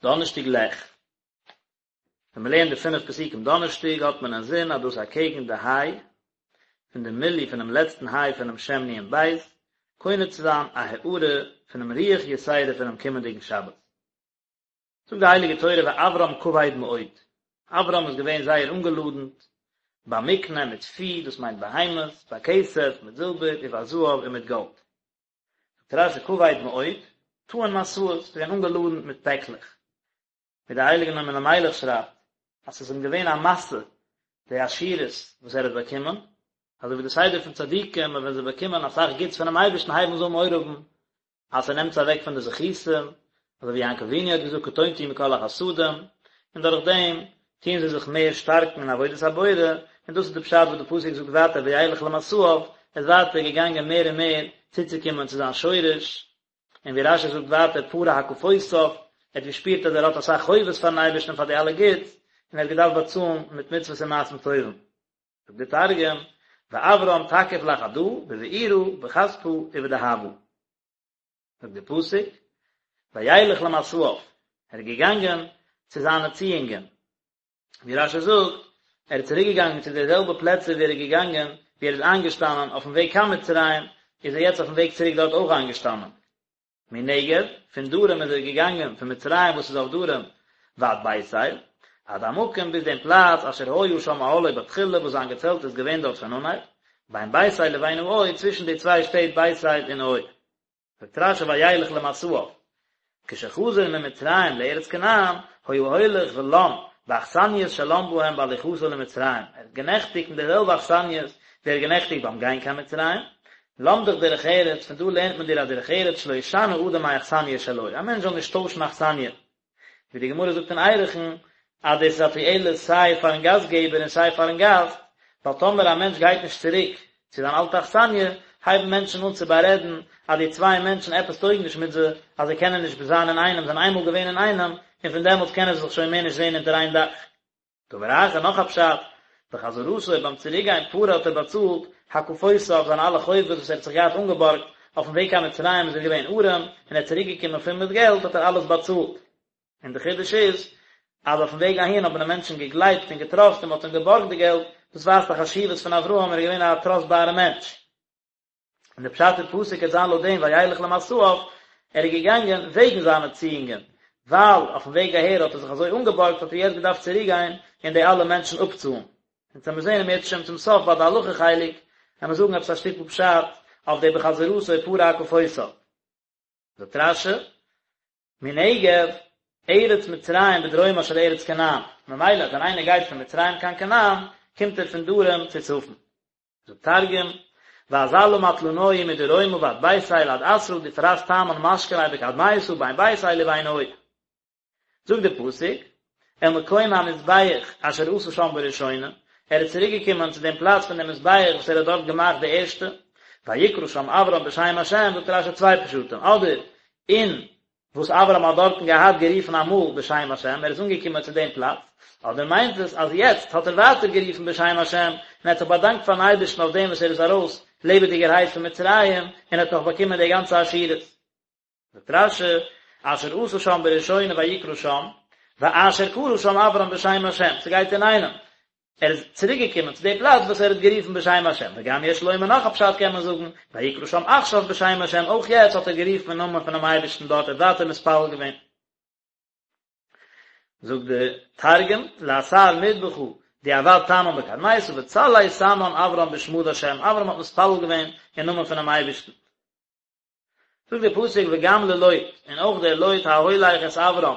דאנערשטאג לך. ווען מען לערנט די פינף פסוקים דאנערשטאג האט מען אינזין אז דאס אקעגן די היי פון די מילוי פונעם לעצטן היי פונעם שם נון בית, קונה צו זיין א הארה פונעם רוח יתירה פונעם קומענדיגן שבת. זאגט די הייליגע תורה ואברם כבד מאוד, אברם איז געווען זייער אנגעלאדנט, במקנה מיט פי, דאס מיינט בהמות, בכסף מיט זילבער, ובזהב און מיט גאלד. זאגט רש"י כבד מאוד, טעון משאות, איז געווען אנגעלאדנט מיט פעקלעך. ווי דער הייליגער נועם אלימלך שרייבט, אז ס'איז אים געווען א משא די עשירות וואס ער האט באקומען, אזוי ווי די סדר פון צדיקים אז ווען זיי באקומען אסאך גוטס פונעם אייבערשטן הייבן זיי אן מורא האבן אז ס'נעמט זיי אוועק פון די זכותים, אזוי ווי יעקב אבינו האט געזאגט קטונתי מכל החסדים, און דורך דעם טוען זיי זיך מער שטארקן אין עבודת הבורא, און דאס איז די פשט וואס די פסוק זאגט ווייטער וילך למסעיו, ער איז ווייטער געגאנגען מער און מער צוצוקומען צו זיין שורש, און ווי רש"י זאגט ווייטער פרע הקפותיו, ער האט געשפירט אז ער האט אסאך חובות פארן אייבערשטן פאר די אלע גוטס, און ער האט געדארפט באצאלן מיט מצוות און מעשים טובים. זאגט דער תרגום, ואברם תקיף לחדא, בבעירא, בכספא, ובדהבא. זאגט דער פסוק, וילך למסעיו, ער איז געגאנגען צו זיינע ציאונגען. ווי רש"י זאגט, ער איז צוריק געגאנגען צו די זעלבע פלעצער ווי ער איז געגאנגען, ווי ער איז איינגעשטאנען אויפן וועג קיין מצרים, איז ער יעצט אויפן וועג צוריק דארט אויך איינגעשטאנען. מנגב, פון דרום איז ער געגאנגען, פון מצרים וואס איז אויף דרום, ועד בית אל, עד המקום ביז דעם פלאץ אשר היה שם אהלו בתחילה וואס זיין געצעלט איז געווען דארט פון אנהייב, בין בית אל לבין העי, צווישן די צוויי שטעט בית אל און עי. זאגט רש"י וילך למסעיו, כשחזר ממצרים לארץ כנען, היה הולך ולן באכסניות שלן בהם בהליכתו למצרים, ער האט גענעכטיגט אין די זעלבע אכסניות ווי ער האט גענעכטיגט ביים גיין קיין מצרים, למדך דרך ארץ, פון דא לערנט מען דיר א דרך ארץ שלא ישנה אדם מאכסניא שלו, א מענטש זאל נישט טוישן אכסניא, ווי די גמרא זאגט אין ערכין אז דאס איז א תועלת סיי פארן גאסט געבער און סיי פארן גאסט, ווייל טאמער א מענטש גייט נישט צוריק צו זיין אלטע אכסניא, הייבן מענטשן אן צו בארעדן אז די צוויי מענטשן עפעס טויג נישט מיט זיי, אז זיי קענען נישט זיין אינאיינעם, זיי זענען איינמאל געווען אינאיינעם, און פון דעמאלטס קענען זיי זיך שוין מער נישט זען אונטער איין דאך. דבר אחר, נאך א פשט, בחזרתו ביים צוריקגיין פרע האט ער באצאלט הקפותיו זיינע אלע חובות וואס ער האט זיך געהאט אנגעבארגט, אויפן וועג קיין מצרים איז ער געווען ארעם, און ער איז צוריקגעקומען פול מיט געלט האט ער אלעס באצאלט. און די חידוש איז, אז אויפן וועג אהין האבן די מענטשן געגלייבט און געטראסט און מען האט אים געבארגט די געלט, דאס ווייזט א חשיבות פון אברהם, ער איז געווען א טראסטבארע מענטש. און די פשט אין פסוק וועט זיין לויט דעם וילך למסעיו, ער איז געגאנגען וועגן זיינע ציאונגען, ווייל אויפן וועג אהער האט ער זיך אזוי אנגעבארגט האט ער יעצט געדארפט צוריק גיין און די אלע מענטשן אפצאלן. אונז וועמיר זען אם ירצה השם צום סוף ביי די הלכה חלק, וועמיר זאגן עפעס א שטיקל פשט אויף די בחזרתו פרע הקפותיו. זאגט רש"י, מנגב, ארץ מצרים בדרומה של ארץ כנען, ממילא ווען איינער גייט פון מצרים קיין כנען, קומט ער פון דרום צו צפון. זאגט תרגום, ואזלא מטלנוהי מדרומא ועד בית אל עד אתרא דפרס תמן משכניה בקדמיתא בין בית אל ובין עי. זאגט דער פסוק, אל מקום המזבח אשר עשה שם בראשונה, ער איז צוריק געקומען צו דעם פלאץ פון דעם מזבח וואס ער האט דארט געמאכט די ערשטע, ויקרא שם אברם בשם השם, זאגט רש"י צוויי פשטים, אדער אין וואס אברהם האט דארטן געהאט גערופן אמאל בשם השם, ער איז אנגעקומען צו דעם פלאץ, אדער מיינט עס אז יעצט האט ער ווייטער גערופן בשם השם, און ער האט זיך באדאנקט פארן אייבערשטן אויף דעם וואס ער איז ארויס לעבעדיגערהייט פון מצרים, און האט נאך באקומען די גאנצע עשירות. זאגט רש"י, אשר עשה שם בראשונה ויקרא שם, ואשר קרא שם אברם בשם השם, ס'גייט אינאיינעם, ער איז צוריק געקומען צו די פלאץ וואס ער האט גערופן בשם השם, וגם יש לומר נאך א פשט קען מען זאגן, ויקרא שם עכשיו בשם השם, אויך יעצט האט ער גערופן אין נאמען פונעם אייבערשטן דארט, ער האט ווייטער מתפלל געווען. זאגט די תרגום, לאתר מדבחא דעבד תמן בקדמיתא וצלי תמן אברם בשמא דהשם, אברהם האט מתפלל געווען אין נאמען פונעם אייבערשטן. זאגט דער פסוק וגם ללוט, און אויך דער לוט ההולך את אברם,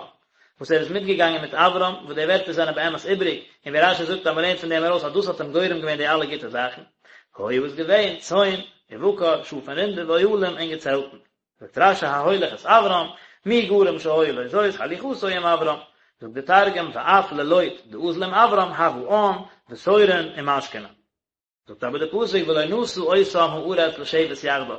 וואס ער איז מיטגעגאנגען מיט אברם, וואס די ווערטער זענען באמת איבריג, און ווי רש"י זאגט אז מען לערנט פון דעם ארויס אז דאס האט אים גורם געווען די אלע גוטע זאכן, היה איז געווען, צאן, ובקר, שאף און רינדער, ואוהלים און געצעלטן. זאגט רש"י ההולך את אברם, מי גרם שהיה לו זאת הליכתו עם אברם, זאגט דער תרגום ואף ללוט דאזל עם אברם הוה עאן ותורין ומשכנין. זאגט אבער דער פסוק ולא נשא אותם הארץ לשבת יחדיו,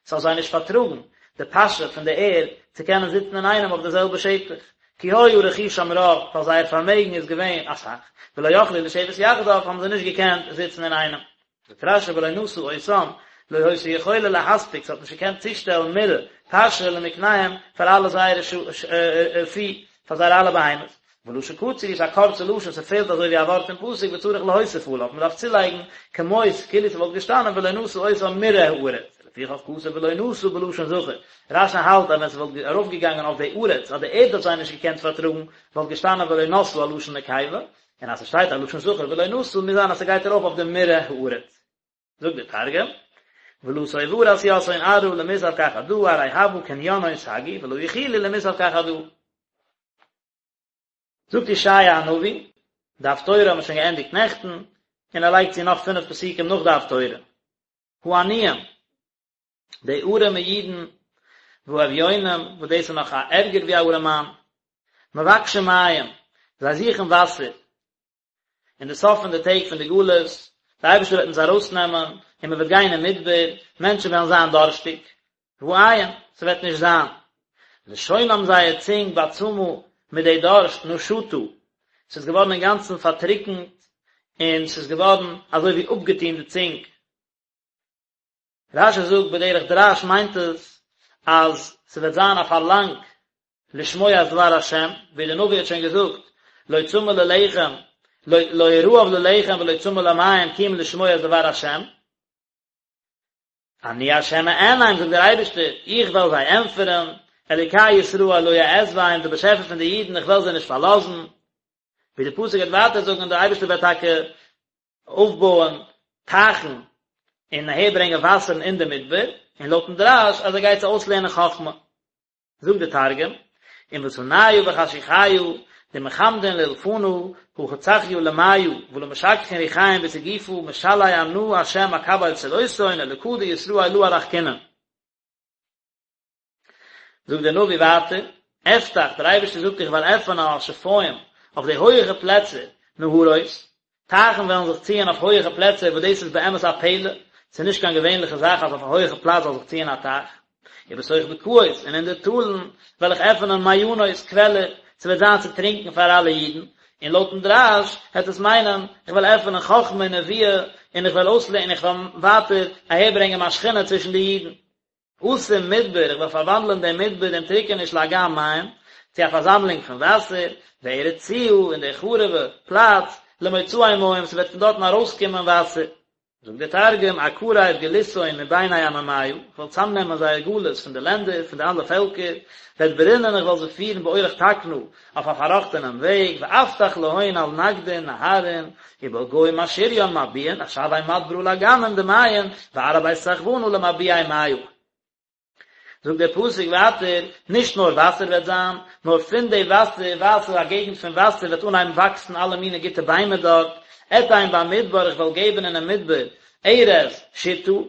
ס'האט זיי נישט פארטראגן די פאשע פון די ערד צו קענען זיצן אינאיינעם אויף די זעלבע שטח, כי היה רכושם רב, ווייל זייער פארמעגן איז געווען אסאך, ולא יכלו לשבת יחדיו, האבן זיי נישט געקענט זיצן אינאיינעם. זאגט רש"י ולא נשא אותם, לא היתה יכולה להספיק, ס'האט נישט געקענט צושטעלן מרעה, פאשע למקניהם, פאר אלע זייערע פי. פאר זייערע אלע בהמות. ולשון קצר הוא ס'איז א קורצע לשון, ס'פעלט אזוי ווי א ווארט אין פסוק וצריך להוסיף עליו, מ'דארף צולייגן כמות כאילו ס'וואלט געשטאנען ולא נשא אותם מרעה הארץ, לפיכך כתב ולא נשא בלשון זכר. רש"י האלט אז ווען ס'וואלט ארויפגעגאנגען אויף די ארץ אז די ערד האט זיי נישט געקענט פארטראגן וואלט געשטאנען ולא נשאה א לשון נקבה, און אז ס'שטייט א לשון זכר ולא נשא מוז זיין אז ס'גייט ארויף אויף די מרעה הארץ. זאגט דער תרגום, ולא סוברת יתהון ארעא למסב כחדא ארי הוה קנינהון סגי ולא יכילו למסב כחדא. זאגט ישעיה הנביא, די הפטורה האבן מיר שוין געענדיגט נעכטן, און ער לייגט צו נאך פינף פסוקים נאך די הפטורה. העניים, די ארעמע אידן, והאביונים, וואס דאס איז נאך א ערגער ווי א ארעמאן, מבקשים מים, זיי זוכן וואסער, אין די סוף פון די טעג פון די גלות, די אייבערשטער וועט אונז ארויסנעמען, און מען וועט גיין אין מדבר, מענטשן וועלן זיין דארשטיג, ואין, ס'וועט נישט זיין. לשונם זייער צונג בצמא מיט די דארשט נשתה, ס'איז געווארן אינגאנצן פארטריקנט, און ס'איז געווארן אזוי ווי אפגעטון די צונג. רש"י זאגט בדרך דרש מיינט עס אז ס'וועט זיין א פארלאנג לשמוע את דבר השם, ווי דער נביא האט שוין געזאגט, לא צמא ללחם, לא רעב ללחם ולא צמא למים כי אם לשמוע את דבר השם. אני השם אענם, זאגט דער אייבערשטער, איך וועל זיי ענטפערן, אלוקי ישראל לא אעזבם, דער באשעפער פון די אידן, איך וועל זיי נישט פארלאזן. ווי דער פסוק וועט ווייטער זאגן, דער אייבערשטער וועט טאקע אויפבויען טייכן און אהערברענגען וואסערן אין די מדבר, און לויטן דרש אז ער גייט זיי אויסלערנען חכמה. זאגט די תרגום, עם ותניא בחשוכיא דמחמדין לאלפנא הכי צחיא למיא ולא משכחין ריחיים בסיגופא משלי אנא השם אקבל צלותהון אלקא דישראל לא ארחקינון. זאגט דער נביא ווייטער, אפתח, דער אייבערשטער זאגט איך וועל עפענען על שפיים, אויף די הויעכע פלעצער, נהרות, טייכן וועלן זיך ציען אויף הויעכע פלעצער וואס דאס איז באמת א פלא, ס'איז נישט קיין געווענליכע זאך אז אויף א הויעכע פלאץ זאל זיך ציען א טייך. ובתוך בקעות, און אין די טאלן וועל איך עפענען מעיינות, קוועלער, ס'וועט זיין צו טרינקען פאר אלע אידן, און לויטן דרש העט עס מיינען, איך וועל עפענען חכמה און נבואה, און איך וועל אויסלערנען, איך וועל ווייטער אהערברענגען מיין שכינה צווישן די אידן. אשים מדבר, איך וועל פארוואנדלען דעם מדבר, דעם טריקעניש לאגם מים, צו א פארזאמלונג פון וואסער, וארץ ציה, און די חרוב'ע פלאץ, למוצאי מים, ס'וועט פון דארטן ארויסקומען וואסער. זאגט דער תרגום, אקריב גלותהון מביני עממיא, איך וועל צאמנעמען זייער גלות פון די לענדער, פון די אלע פעלקער, ואדברינון, איך וועל זיי פירן באורח תקנא, אויף א פארראכטענעם וועג, ואפתח להון על נגדין נהרין, ובלגי משריין מבועין, אשווי מדברא לאגמין דמיין, וארעא בית סחבנא למבועי מיא. זאגט דער פסוק ווייטער, נישט נאר וואסער וועט זיין, נאר פון די וואסער, וואסער, א געגנט פון וואסער, וועט אנהייבן וואקסן אלע מיני גוטע ביימער דארט, אתן במדבר, איך וועל געבן אינעם מדבר, ארז, שטה, וואס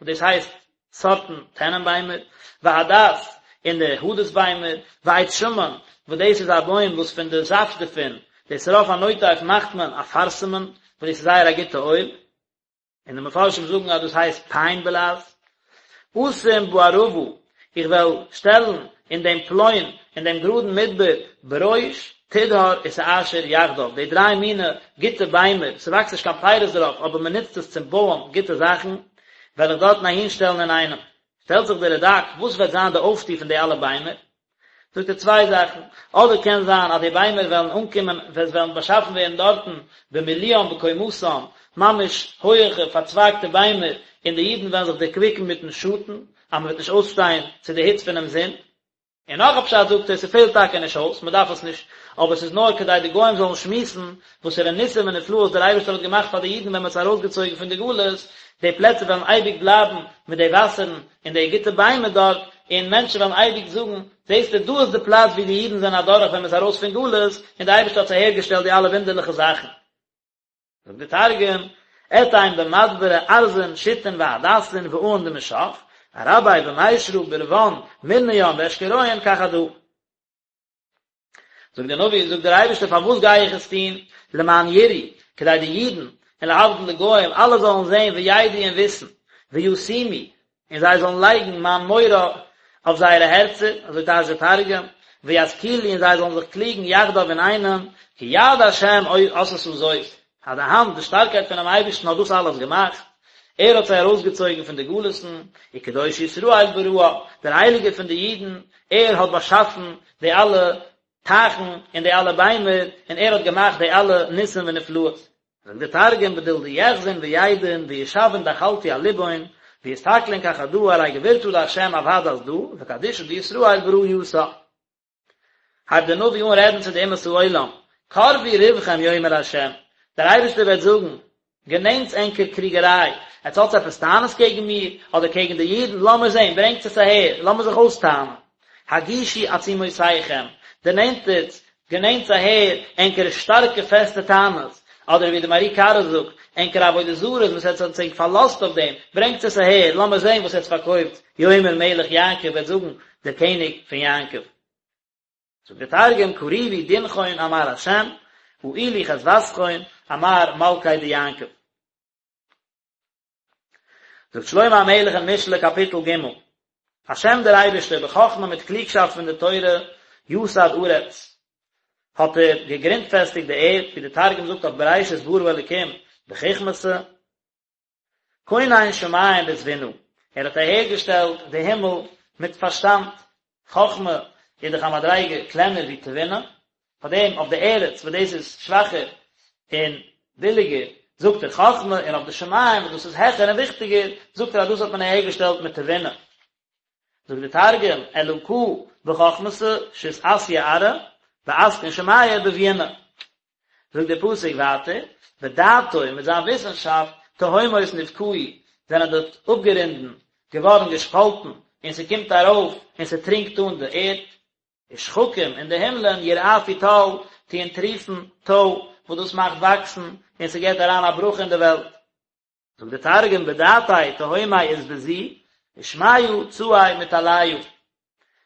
דאס הייסט סארטן טענענביימער, והדס, און די הדס ביימער, ועץ שמן, וואס דאס איז א בוים וואס פון די זאפט דערפון, די שרף הנוטף מאכט מען אפרסמון, וואס דאס איז זייער א גוטע אויל, און די מפרשים זאגן אז דאס הייסט פיין בלע"ז. אשים בערבה, איך וועל שטעלן אין דעם פלוין, אין דעם גראדן מדבר, ברוש, תדהר ותאשור יחדיו, די דריי מיני גוטע ביימער, ס'וואקסט נישט קיין פירות דערויף, אבער מ'נוצט עס צום בויען גוטע זאכן, וועל איך דארטן אהינשטעלן אינאיינעם. שטעלט זיך דער רד"ק, וואס וועט זיין די אויפטו פון די אלע ביימער? זאגט ער צוויי זאכן, אדער קען זיין אז די ביימער וועלן אנקומען, עס וועלן באשאפן ווערן דארטן במילואם בקומתם, ממש הויעכע פארצווייגטע ביימער, און די אידן וועלן זיך דערקוויקן מיטן שאטן, אז מ'וועט נישט אויסשטיין צו די היץ פונעם זון. און נאך א פשט זאגט ער, ס'פעלט טאקע נישט אויס, מ'דארף עס נישט, אבער ס'איז נאר כדי די גוים זאלן שמועסן וואסערע ניסים ונפלאות דער אייבערשטער האט געמאכט פאר די אידן ווען מ'האט זיי ארויסגעצויגן פון די גלות, די פלעצער וועלן אייביג בלייבן מיט די וואסערן און די גוטע ביימער דארט, און מענטשן וועלן אייביג זאגן, זעסטו, דא איז די פלאץ וואו די אידן זענען אדורך ווען מ'איז ארויס פון גלות, און די אייבערשטער האט אהערגעשטעלט די אלע וואונדערליכע זאכן. זאגט דער תרגום, אתין במדברא ארזין שיטין והדסין ואעין דמשך, ארבי במישרא ברון מרניין ואשכוריין כחדא. זאגט דער נביא, זאגט דער אייבערשטער, פארוואס גיי איך עס טון? למען יראו, כדי די אידן, און להבדיל די גוים, אלע זאלן זען וידעו און וויסן, וישימו, און זיי זאלן לייגן מיין מורא אויף זייערע הערצער, אזוי טייטשט דער תרגום, וישכילו און זיי זאלן זיך קליגן יחדיו אינאיינעם, כי יד השם עשתה זאת, אז די האנט, די שטארקייט פונעם אייבערשטן האט דאס אלעס געמאכט, ער האט זיי ארויסגעצויגן פון די גלות'ן, וקדוש ישראל בראה, דער הייליגער פון די אידן, ער האט באשאפן די אלע. טייכן און די אלע ביימער, און ער האט געמאכט די אלע ניסים ונפלאות. זאגט דער תרגום בדיל דיחזון וידעון וישוון דחלתו על לבהון ויסתכלון כחדא ארי גבורתא דהשם עבדת דא וקדישא דישראל ברא יתה. הייבט דער נביא אן רעדן צו די אומות העולם, קרבו ריבכם יאמר השם, דער אייבערשטער וועט זאגן, גענענטס ענקער קריגעריי, עטס האטס עפעס טענות קעגן מיר, אדער קעגן די אידן, לאמיר זען, ברענגטס עס אהער, לאמיר זיך אויסטענה'ן. הגישו עצומותיכם, דערנענטערטס, גענענטס אהער, ענקערע שטארקע פעסטע טענות, אדער ווי די מהר"י קרא זאגט, ענקערע עבודה זרות וואס עטס האטס ענק פארלאזט אויף דעם, ברענגטס עס אהער, לאמיר זען וואס עטס פארקויפטס, יאמר מלך יעקב וועט זאגן דער קעניג פון יעקב. זאגט דער תרגום, קריבו דינכון אמר השם, אעילו חדוותכון אמר מלכא דיעקב. זאגט שלמה המלך אין משלי קאפיטל ג', השם דער אייבערשטער בחכמה מיט קלוגשאפט פון די תורה יסד ארץ, האט ער געגרונטפעסטיגט די ערד, ווי דער תרגום זאגט אויף בראשית ברא אלקים בחכמתא, כונן שמים בתבונה, ער האט אהערגעשטעלט די הימל מיט פארשטאנד, חכמה איז דאך א מדריגה קלענער ווי תבונה, פאר דעם אויף די ארץ וואס דאס איז שוואכער און ביליגער זאגט ער חכמה, און אויף די שמים וואס דאס איז העכער און וויכטיגער זאגט ער אז דאס האט מען אהערגעשטעלט מיט תבונה. זאגט די תרגום, אלקא בחכמתא שית אתיא ארעא, ואתקן שמיא בביונא. זאגט דער פסוק ווייטער, בדעתו, מיט זיין וויסנשאפט, תהומות נבקעו, זענען די אפגערונדן געווארן געשפאלטן, און ס'קומט ארויף און ס'טרינקט אן די ערד, ושחקים און די הימלען ירעפו טל, טוען טריפן טוי, וואס דאס מאכט וואקסן, און ס'געבט אריין א ברכה אין די וועלט. זאגט דער תרגום, בדעתיה תהומי אתבזו, ושמיא צעי מטליא.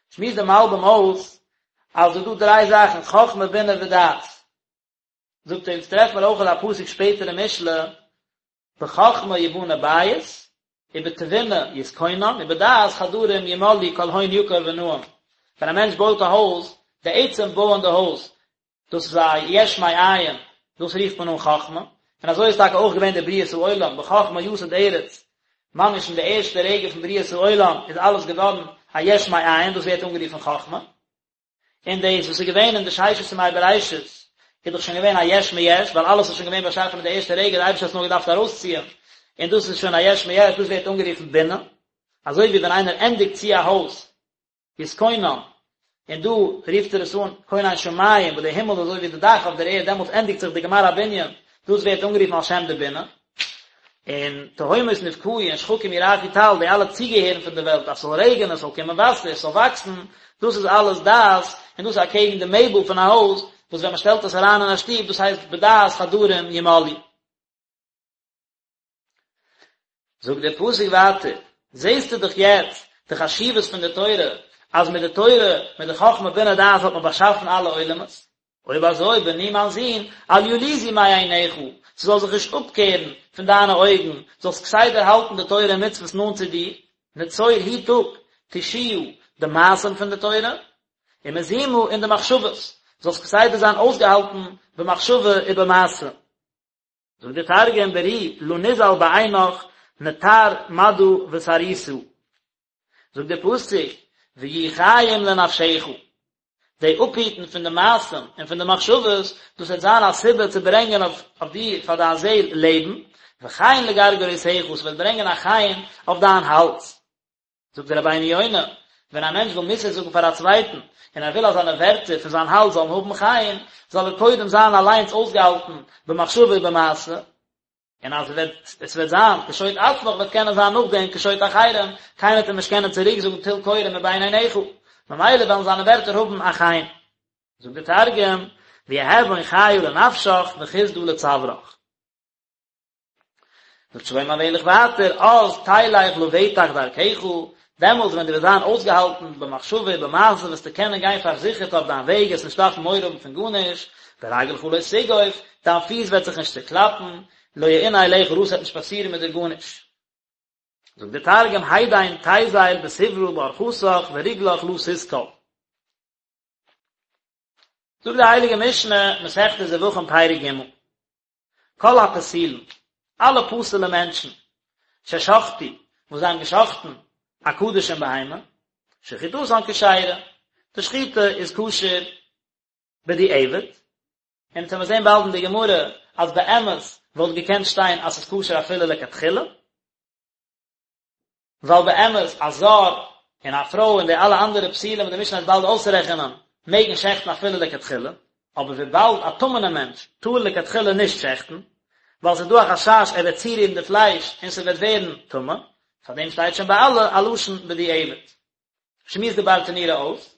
שמועסט דער מלבים אויס אז ס'איז דא דריי זאכן, חכמה בינה ודעת. זאגט ער, אונז טרעפן מיר אויך א פסוק שפעטער אין משלי, בחכמה יבנה בית, ובתבונה יתכונן, ובדעת חדרים ימלאו כל הון יקר ונאים. ווען א מענטש בויט א הויז, די עצם בויען די הויז, דאס איז א יש מאין, דאס רופט מען אן חכמה, און אזוי איז טאקע אויך געווען די בריאת העולם, בחכמה יסד ארץ, ממש אין די ערשטע רגע פון בריאת העולם איז אלעס געווארן א יש מאין, דאס ווערט אנגערופן חכמה, און דאס וואס איז געווען אין די ששת ימי בראשית איז דאך שוין געווען א יש מיש, ווייל אלעס איז שוין געווען באשאפן אין די ערשטע רגע, די אייבערשטער האט עס נאר געדארפט ארויסציען, און דאס איז שוין א יש מיש, דאס ווערט אנגערופן בינה, אזוי ווי ווען איינער ענדיגט צו א הויז, יתכונן, און דא רופט ער עס אן כונן שמים, וואס די הימל איז אזוי ווי די דאך אויף דער ערד, דעמאלטס ענדיגט זיך די גמר הבנין, דאס ווערט אנגערופן על שם די בינה. און תהומות נבקעו און שחקים ירעפו טל, די אלע צוגעהערן פון די וועלט, אז ס'זאל רעגענען, ס'זאל קומען וואסער, ס'זאל וואקסן, דאס איז אלעס דעת, און דאס איז אקעגן די מעבל פון א הויז, וואס ווען מ'שטעלט עס אריין אין א שטוב, דאס הייסט בדעת חדרים ימלאו. זאגט דער פסוק ווייטער, זעסטו דאך יעצט די חשיבות פון די תורה, אז מיט די תורה, מיט די חכמה בינה דעת האט מען באשאפן אלע עולמות, אויב אזוי בני מיין זון, אל ילוזו מעיניך, ס'זאל זיך נישט אפקערן פון דיינע אויגן, זאלסט כסדר האלטן די תורה און מצוות נאנט צו דיר, נצור היט אפ, תושיה, די מעשים פון די תורה, ומזימה און די מחשבות, זאלסט כסדר זיין אויסגעהאלטן במחשבה ובמעשה. זאגט דער תרגום ברי לא נזל בעינך נטר מדא וסריסא, זאגט דער פסוק ויהיו חיים לנפשך, די אפהיטן פון די מעשים און פון די מחשבות, דאס וועט זיין א סיבה צו ברענגען אויף דיר פאר דיין זעל לעבן, וחן לגרגרותיך, ס'וועט ברענגען א חן אויף דיין האלז. זאגט דער רבינו יונה, ווען א מענטש וויל מוסר זאגן פאר א צווייטן, און ער וויל אז זיינע ווערטער פון זיין האלז זאלן האבן חן, זאל ער קודם זיין אליינס אויסגעהאלטן במחשבה ובמעשה, און אז עס וועט זיין קשוט עצמך וועט קענען זיין נאכדעם קשוט אחרים, קיינער וועט אים נישט קענען צוריק זאגן טול קורה מבין עיניך, ממילא וועלן זיינע ווערטער האבן א חן. זאגט דער תרגום, ויהוון חייא לנפשך וחסדא לצוארך. זאגט שלמה המלך ווייטער, אז תלך לבטח דרכך, דעמאלטס ווען דו וועסט זיין אויסגעהאלטן במחשבה ובמעשה וועסטו קענען גיין פארזיכערט אויף דיין וועג, וועסט נישט דארפן מורא האבן פון גארנישט, ורגלך לא תגוף, דיין פיס וועט זיך נישט צוקלאפן, לא יאונה אליך רע, ס'וועט נישט פאסירן מיט דיר גארנישט. זאגט דער תרגום, הידין תיזיל בסברא באורחתך ורגלך לא תתקל. זאגט די הייליגע משנה, מסכת זבחים פרק ג', כל הפסולין, אלע פסול'ע מענטשן, ששחטו, וואס זיי האבן געשחטן א קדשים בהמה, שחיטתן כשרה, די שחיטה איז כשר. בדיעבד, און אונז וועמיר זען באלד אין די גמרא אז באמת וואלט געקענט שטיין אז ס'איז כשר אפילו לכתחילה, ווייל באמת א זר און א פרוי און די אלע אנדערע פסולים וואס די משנה וועט באלד אויסרעכענען מעגן שעכטן אפילו לכתחילה, אבער וויבאלד א טמא'נער מענטש טאר לכתחילה נישט שעכטן, ווייל ס'איז דא א חשש ער וועט צורירן די פלייש און ס'וועט ווערן טמא, פארדעם שטייט שוין ביי אלע א לשון בדיעבד. שמועסט די ברטנורא אויס,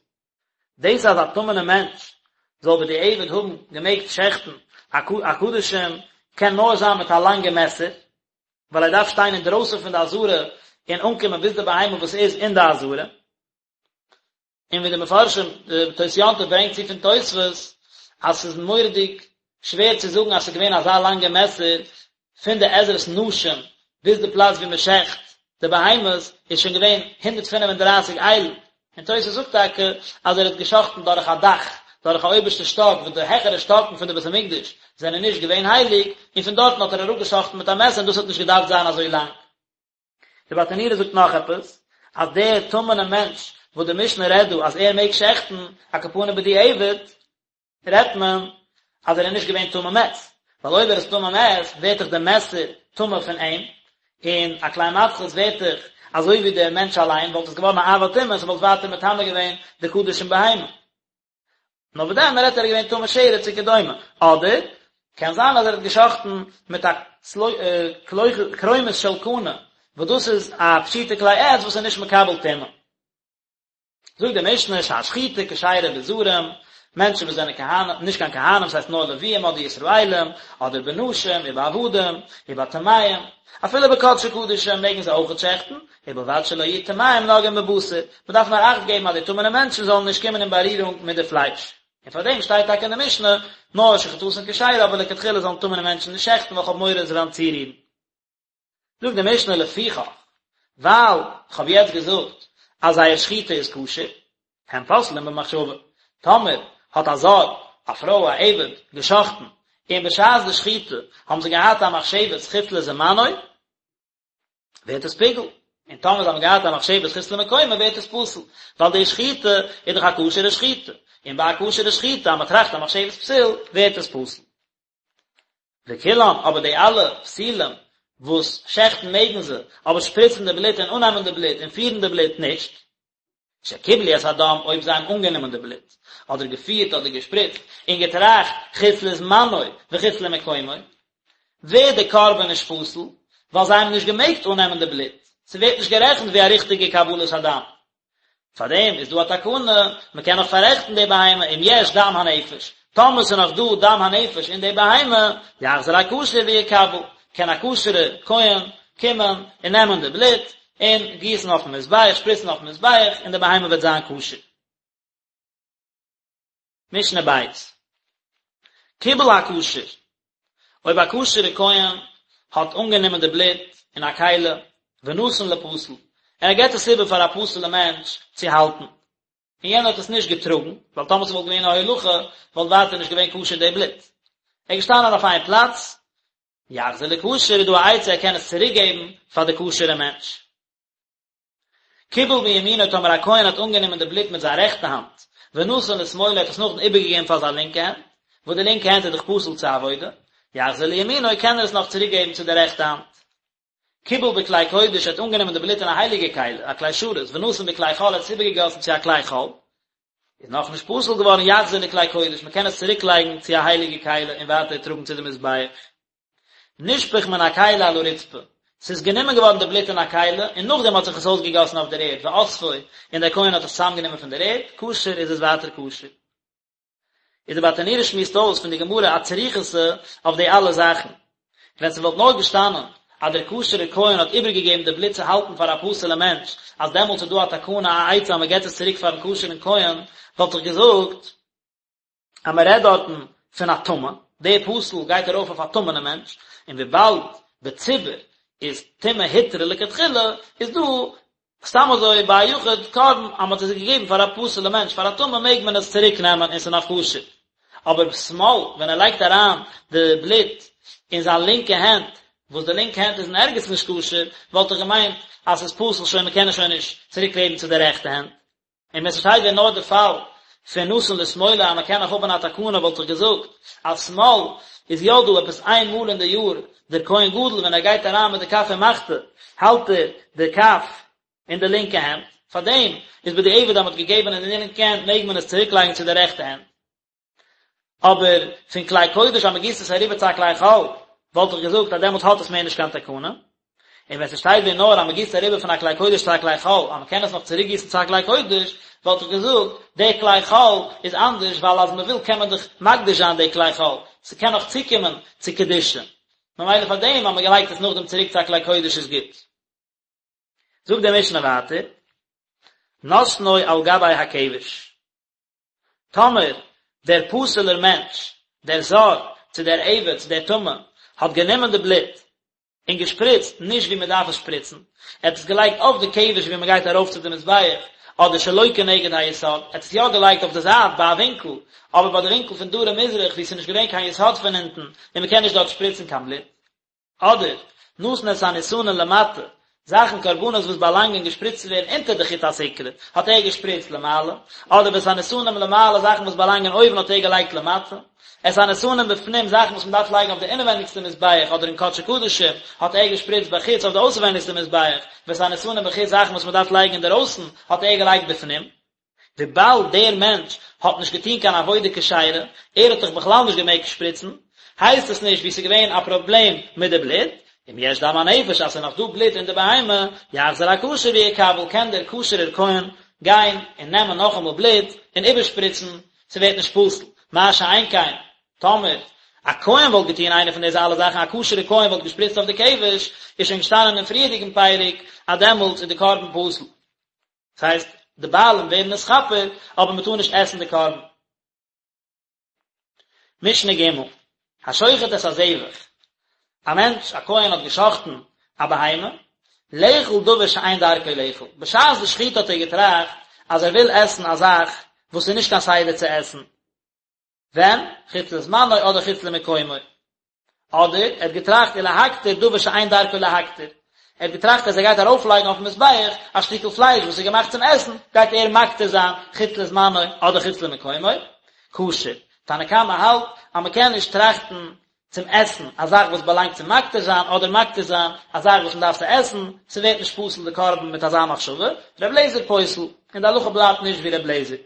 דאס אז א טמא'נער מענטש זאל בדיעבד האבן געמעגט שעכטן א קדשים קען נאר זיין מיט א לאנגע מעסער, ווייל ער דארף שטיין אינדרויסן פון די עזרה און אנקומען ביז די בהמה וואס איז אין די עזרה. און ווי די מפרשים, די תוס' יום טוב ברענגט צו פון תוספות, אז ס'איז מורא'דיג שווער צו זאגן אז ס'איז געווען אזא לאנגע מעסער פון די עזרת נשים ביז די פלאץ ווי מ'שעכט די בהמות איז שוין געווען 135 איילן, און תוס' זאגט טאקע אז ער האט געשאכטן דורך א דאך, דורך א אויבערשטע שטאק וואס די העכערע שטאקן פון די בית המקדש זענען נישט געווען הייליג, און פון דארטן האט ער אראפגעשאכטן מיט א מעסער און דאס האט נישט געדארפט זיין אזוי לאנג. די ברטנורא זאגט נאך עפעס, אז דער טמא'נער מענטש וואס די משנה רעדט דא אז ער מעג שעכטן, על כל פנים בדיעבד, רעדט מען אז ער איז נישט געווען טמא מת, ווייל אויב ער איז טמא מת ווערט דאך דער מעסער טמא פון אים, און א כלי מתכות ווערט דאך אזוי ווי דער מענטש אליין, וואלט עס געווארן א אב הטומאה און ס'וואלט ווייטער מטמא געווען די קדשים בהמה. נאר וואס דען, מ'רעדט ער איז געווען טמא שרץ וכדומה, אדער קען זיין אז ער האט געשאכטן מיט א קרומית של קנה, וואס דאס איז א פשוטע כלי עץ וואס איז נישט מקבל טומאה. זאגט די משנה שהשחיטה כשרה בזרים, מענטשן וואס זענען כהנים, נישט קיין כהנים, ס'הייסט נאר לוויים אדער ישראלים, אדער בנשים ובעבדים, ובטמאים, אפילו בקדשי קדשים מעגן זיי אויכעט שעכטן, ובלבד שלא יהיו טמאים נוגעים בבשר, מ'דארף נאר אכט געבן אז די טמא'נע מענטשן זאלן נישט קומען אין בארירונג מיט די פלייש. און פאר דעם שטייט טאקע אין די משנה, נאר שחיטתן כשרה אבער לכתחילה זאלן טמא'נע מענטשן נישט שעכטן ווייל כ'האב מורא זיי וועלן צורירן. זאגט די משנה לפיכך, ווייל כ'האב יעצט געזאגט אז זייער שחיטה איז כשר, הן פוסלין במחשבה, טאמער האט א זר, א פרוי, א עבד, געשחטן, און בשעת די שחיטה האבן זיי געהאט א מחשבת חוץ לזמנו, ווערט עס פיגול, און טאמער זיי האבן געהאט א מחשבת חוץ למקומו ווערט עס פסול, ווייל די שחיטה איז דאך א כשר'ע שחיטה, און ביי א כשר'ע שחיטה אז מען טראכט א מחשבת פסול ווערט עס פסול. וכולן, אבער די אלע פסולים וואס שעכטן מעגן זיי, אבער שפריצן די בלוט און אננעמען די בלוט און פירן די בלוט נישט. שקיבלו את הדם, אויב זיי האבן אנגענומען די בלוט, אדער געפירט אדער געשפריצט, און געטראכט חוץ לזמנו וחוץ למקומו, ווערט די קרבן נישט פסול, ווייל זיי האבן נישט געמעגט אננעמען די בלוט, ס'ווערט נישט גערעכנט ווי א ריכטיגע קבלת הדם. פאר דעם איז דא א תקנה, מען קען נאך פאררעכטן די בהמה אם יש דם הנפש, טאמער ס'איז נאך דא דם הנפש אין די בהמה, יחזור הכשר ויקבל, קען א כשר'ע כהן קומען און נעמען די בלוט און גיסן אויפן מזבח, שפריצן אויפן מזבח, און די בהמה וועט זיין כשר. משנה בית. קיבל הכשר, אויב א כשר'ע כהן האט אנגענומען די בלוט אין א כלי, ונתן לפסול, און ער געבט עס איבער פאר א פסול'ע מענטש צו האלטן, און יענער האט עס נישט געטראגן, ווייל טאמער ס'וואלט געווען א הולכה, וואלט ווייטער נישט געווען כשר די בלוט. ער איז געשטאנען אויף איין פלאץ, יחזיר לכשר איז דא א עצה ער קען עס צוריק געבן פאר די כשר'ע מענטש. קיבל בימינו טאמער א כהן האט אנגענומען די בלוט מיט זיין רעכטע האנט, ונתן לשמאלו האט עס נאכדעם איבערגעגעבן פאר זיין לינקע הענט, וואס די לינקע הענט איז דאך פסול צו עבודה, יחזיר לימינו קען ער עס נאך צוריק געבן צו די רעכטע האנט. קיבל בכלי קודש האט אנגענומען די בלוט אין א הייליגע כלי, א כלי שרת, ונתן בכלי חול האט עס איבערגעגאסן צו א כלי חול, איז נאכנישט פסול געווארן יחזיר לכלי קודש, מען קען עס צוריק לייגן צו א הייליגע כלי און ווייטער טראגן צו די מזבח. נשפך מן הכלי על הרצפה, ס'איז גענומען געווארן די בלוט אין א כלי, און נאכדעם האט זיך עס אויסגעגאסן אויף דער ערד, ואספו, און דער כהן האט עס צוזאמגענומען פון דער ערד, כשר איז עס ווייטער כשר. איז די ברטנורא שמועסט אויס פון די גמרא א צריכותא אויף די אלע זאכן. ווען ס'וואלט נאר געשטאנען אז דער כשר'ער כהן האט איבערגעגעבן די בלוט צו האלטן פאר א פסול'ע מענטש, אז דעמאלטס איז דא א תקנה א עצה אז מ'געט עס צוריק פאר'ן כשר'ן כהן, וואלט איך געזאגט אז מ'רעדט דארטן פון א טמא, די פסול גייט ארויף אויף א טמא'נע מענטש, און וויבאלד בציבור איז טומאה הותרה לכתחילה, איז דא סתם אזוי ביי א יחיד קרבן אז מען האט עס געגעבן פאר א פסול'ע מענטש פאר א טמא מעג מען עס צוריק נעמען און ס'איז נאך כשר. אבער בשמאל ווען ער לייגט אריין די בלוט אין זיין לינקע הענט וואס די לינקע הענט איז אין ערגעץ נישט כשר וואלט איך געמיינט אז ס'איז פסול שוין מ'קען עס שוין נישט צוריק געבן צו די רעכטע הענט. און ווען ס'שטייט ווען נאר די פאל. פון נתן לשמאלו אז מען קען נאך האבן א תקנה וואלט איך געזאגט אז שמאל איז יא דא עפעס איין מאל אין די יאר דער כהן גדול ווען ער גייט אריין מיט די כף ומחתה האלט ער די כף אין די לינקע הענט, פארדעם איז בדיעבד אז מען האט געגעבן אין די לינקע הענט מעג מען עס צוריק לייגן צו די רעכטע הענט. אבער פון כלי קודש אז מען גיסט עס אריבער צו א כלי חול, וואלט איך געזאגט אז דעמאלטס האט עס מער נישט קיין תקנה. און ווען ס'שטייט ווען נאר אז מען גיסט אריבער פון א כלי קודש צו א כלי חול, אז מען קען עס נאך צוריק גיסן צו א כלי קודש, וואלט איך געזאגט, די כלי חול איז אנדערש ווייל אז מען וויל קען מען דאך מקדיש זיין די כלי חול, ס'קען נאך צוקומען צו קדושה. ממילא פאר דעם אז מען לייגט עס נאכדעם צוריק צו א כלי קודש איז גוט. זאגט די משנה ווייטער, נתנו על גבי הכבש. טאמער דער פסול'ער מענטש, דער זר, צו דער עבד, צו דער טמא, האט גענומען די בלוט און געשפריצט נישט ווי מען דארף עס שפריצן, ער האט עס געלייגט אויף די כבש ווי מען גייט ארויף צו די מזבח, אדער שלא כנגד היסוד, ער האט עס יא געלייגט אויף די זייט ביי א ווינקל, אבער ביי די ווינקל פון דרום מזרח וואו עס איז נישט געווען קיין יסוד פון אונטן און מען קען נישט דארט שפריצן קיין בלוט. אדער, נתן את הניתנים למטה, זאכן קרבנות וואס באלאנגען געשפריצט צו ווערן אונטער די חוט הסיקרא, האט ער געשפריצט למעלה, אדער ואת הניתנים למעלה, זאכן וואס באלאנגען אויבן האט ער געלייגט למטה, את הניתנים בפנים, זאכן וואס מען דארף לייגן אויף די אינעווענדיגסטע מזבח אדער אין קדשי קדשים, האט ער געשפריצט בחוץ אויף די אויסערווענדיגסטע מזבח, ואת הניתנים בחוץ, זאכן וואס מען דארף לייגן אינדערויסן, האט ער געלייגט בפנים. וויבאלד דער מענטש האט נישט געטון קיין עבודה כשרה, ער האט דאך בכלל נישט געמעגט שפריצן, הייסט עס נישט ווי ס'איז געווען א פראבלעם מיט די בלוט, אם יש דם הנפש אז ס'איז נאך דא בלוט אין די בהמה, יחזור הכשר ויקבל, קען דער כשר'ער כהן גיין און נעמען נאכאמאל בלוט און איבערשפריצן, ס'ווערט נישט פסול, מה שאין כן טאמער א כהן וואלט געטון איינע פון דיזע אלע זאכן, א כשר'ער כהן וואלט געשפריצט אויף די כבש, איז שוין געשטאנען אין פריערדיגן פרק אז דעמאלטס איז די קרבן פסול. דאס הייסט, די בעלים ווערן נתכפר, אבער מען טאר נישט עסן די קרבן. משנה ג', השוחט את הזבח, א מענטש, א כהן האט געשחטן א בהמה, לאכול דבר שאין דרכו לאכול, בשעת די שחיטה האט ער געטראכט אז ער וויל עסן א זאך וואס איז נישט קיין סדר צו עסן, ווען? חוץ לזמנו אדער חוץ למקומו. אדער ער האט געטראכט ולהקטיר דבר שאין דרכו להקטיר. ער האט געטראכט אז ער גייט ארויפלייגן אויפן מזבח א שטיקל פלייש וואס איז געמאכט צום עסן, גייט ער מקטיר זיין חוץ לזמנו אדער חוץ למקומו. כשר. תנא קמא האלט אז מען קען נישט טראכטן צום עסן א זאך וואס באלאנגט צום מקטיר זיין אדער מקטיר זיין א זאך וואס מען דארף צו עסן, ס'ווערט נישט פסול די קרבן מיט אזא מחשבה. ר' לעזער פוסל. און די הלכה בלייבט נישט ווי ר' לעזער.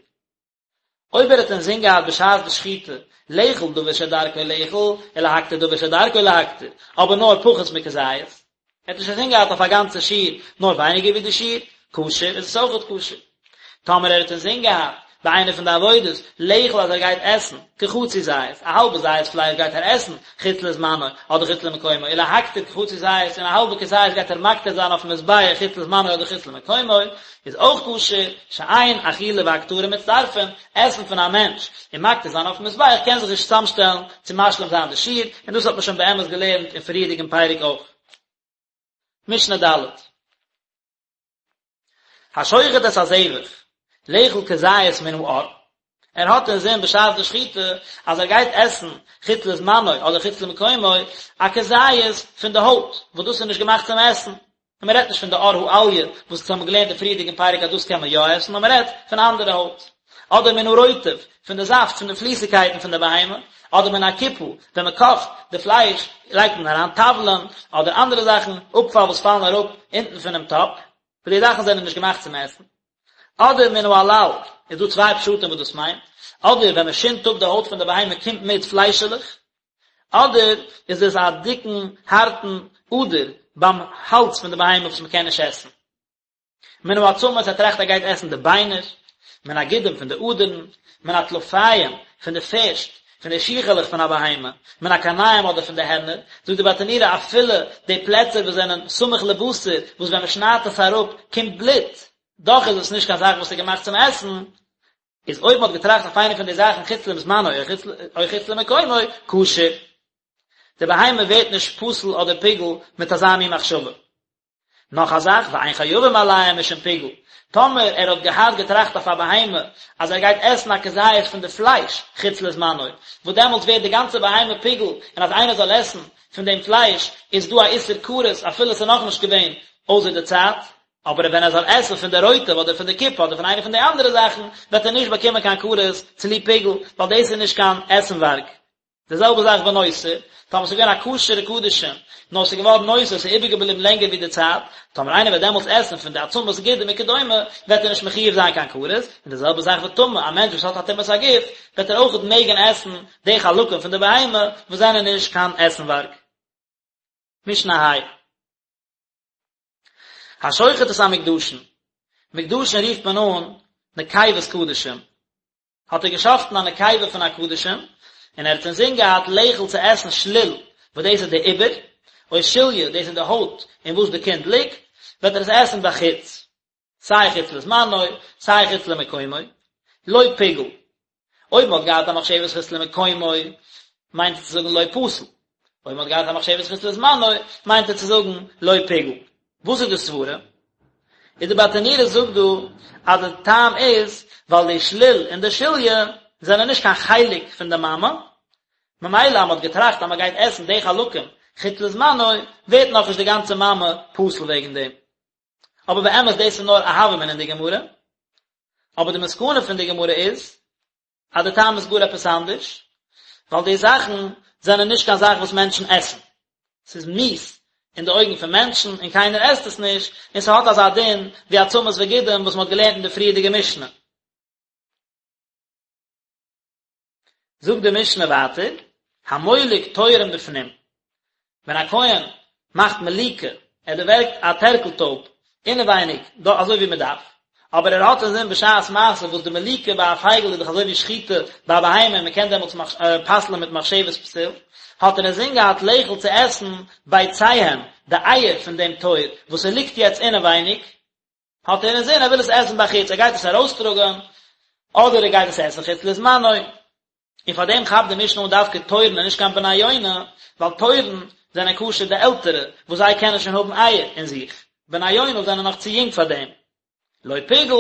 אויב ער האט אינזין געהאט בשעת די שחיטה לאכול דבר שדרכו לאכול ולהקטיר דבר שדרכו להקטיר, אבער נאר פחות מכזית, ער האט נישט אינזין געהאט אויף א גאנצע שיעור נאר ווייניגער ווי די שיעור, כשר, איז עס אויכעט כשר. טאמער ער האט אינזין געהאט ביי איינע פון די עבודות לאכול אז ער גייט עסן כחצי זית, א האלבע זית פלייש גייט ער עסן חוץ לזמנו אדער חוץ למקומו, ולהקטיר כחצי זית און א האלבע כזית גייט ער מקטיר זיין אויפן מזבח חוץ לזמנו אדער חוץ למקומו, איז אויך כשר, שאין אכילה והקטרה מצטרפין, עסן פון א מענטש און מקטיר זיין אויפן מזבח קען זיך נישט צוזאמשטעלן צו משלים זיין די שיעור, און דאס האט מען שוין באמת געלערנט אין פריערדיגן פרק אויך. משנה ד'. השוחט את הזבח, לאכול כזית מן העור, ער האט אינזין בשעת די שחיטה אז ער גייט עסן חוץ לזמנו אדער חוץ למקומו א כזית פון די הויט, וואס דאס איז נישט געמאכט צום עסן, און מען רעדט נישט פון די עור האליה וואס אונז האבן געלערנט אין פריערדיגן פרק אז דאס קען מען יא עסן, נאר מען רעדט פון אנדערע הויט. אדער מן הרוטב, פון די זאפט פון די פליסיגקייטן פון די בהמה, אדער מן הקופה, ווען מען קאכט די פלייש לייגט מען אריין תבלין, אדער אנדערע זאכן, אפפאל וואס פאלן אראפ אונטן פונעם טאפ, וואס די זאכן זענען נישט געמאכט צום עסן. אדער מן העלל, איז דא צוויי פשטים וואס דאס מיינט, אדער ווען מען שינדט אפ די הויט פון די בהמה קומט מיט פליישעלעך, אדער איז עס א דיקן הארטן אדער ביים האלז פון די בהמה וואס מען קען נישט עסן. מן העצמות ער טראכט ער גייט עסן די ביינער, מן הגידים פון די אדערן, מן הטלפיים פון די פערשט, פון די שיכעלעך פון א בהמה, מן הקרניים אדער פון די הערנער, זאגט די ברטנורא אפילו די פלעצער וואס זענען סמוך לבשר וואס ווען מען שניידט עס אראפ קומט בלוט, דאך איז עס נישט קיין זאך וואס איז געמאכט צום עסן, איז אויב מען האט געטראכט אויף איינע פון די זאכן חוץ לזמנו או חוץ למקומו, כשר. די בהמה ווערט נישט פסול אדער פיגול מיט אזא מין מחשבה. נאך א זאך, ואין חייבים עליהם משום פיגול, טאמער ער האט געהאט געטראכט אויף א בהמה אז ער גייט עסן א כזית פון די פלייש חוץ לזמנו, וואס דעמאלטס ווערט די גאנצע בהמה פיגול, און אז איינער זאל עסן פון דעם פלייש איז דא א איסור כרת אפילו עס איז נאכנישט געווען אויסער די צייט. אבער ווען ער זאל עסן פון די רוטב אדער פון די קופה אדער פון איינע פון די אנדערע זאכן, וועט ער נישט באקומען קיין כרת צוליב פיגול, ווייל דאס איז נישט קיין עסנווארג. די זעלבע זאך ונותר, טאמער ס'איז געווען א כשר'ע קדשים, נאר ס'איז געווארן נותר, ס'איז איבערגעבליבן לענגער ווי די צייט, טאמער איינער וועט דעמאלטס עסן פון די עצמות גידים וכדומה, וועט ער נישט מחויב זיין קיין כרת, און די זעלבע זאך וטמא, א מענטש וואס האט א טומאת הגוף, וועט ער אויכעט מעגן עסן די חלקים פון די בהמה וואס זענען נישט קיין עסנווארג. משנה ה'. השוחט את המוקדשין, מוקדשין רופט מען אן נקבות קדשים, האט ער געשחטן א נקבה פון א קדשים, און ער האט אינזין געהאט לאכול צו עסן שליל, וואס דאס איז די עובר, או שליה, דאס איז די הויט אין וואס די קינד ליגט, וועט ער עס עסן בחוץ, סיי חוץ לזמנו, סיי חוץ למקומו, לא פיגל. אויב מען האט געהאט א מחשבת חוץ למקומו, מיינט עס צו זאגן לא פסל. אויב מען האט געהאט א מחשבת חוץ לזמנו, מיינט ער צו זאגן לא פיגל. וואס איז די סברה? איז די ברטנורא זאגט דא אז די טעם איז ווייל די שליל און די שליה זענען נישט קיין חלק פון די מאמע, ממילא אז מען האט געטראכט אז מען גייט עסן די חלקים חוץ לזמנו, ווערט נאכנישט די גאנצע מאמע פסול וועגן דעם. אבער באמת דאס איז נאר א הוה אמינא אין די גמרא, אבער די מסקנא פון די גמרא איז אז די טעם איז גאר עפעס אנדערש, ווייל די זאכן זענען נישט קיין זאך וואס מענטשן עסן, ס'איז מיאוס אין די אויגן פון מענטשן און קיינער עסט עס נישט, און ס'האט אזא דין ווי עצמות וגידים וואס מ'האט געלערנט אין די פריערדיגע משנה. זאגט די משנה ווייטער, המולק תורין בפנים, ווען א כהן מאכט מליקה, ער דערווערגט א טערקל טויב אינעווייניג, דא אזוי ווי מען דארף, אבער ער האט אינזין בשעת מעשה וואס די מליקה ביי א פייגל איז דאך אזוי ווי שחיטה ביי א בהמה און מען קען דעמאלטס פסל'ען מיט מחשבת פסול, האט ער אינזין געהאט לאכול צו עסן ביציהם, די אייער פון דעם תור וואס ס'ליגט יעצט אינעווייניג, האט ער אינזין ער וויל עס עסן בחוץ, ער גייט עס ארויסטראגען, אדער ער גייט עס עסן חוץ לזמנו, און פאר דעם כאפט די משנה אן דווקא תורין און נישט קיין בני יונה, ווייל תורין זענען כשר די עלטערע, וואס זיי קענען שוין האבן אייער אין זיך, בני יונה זענען נאך צו יונג פאר דעם. לא פיגל,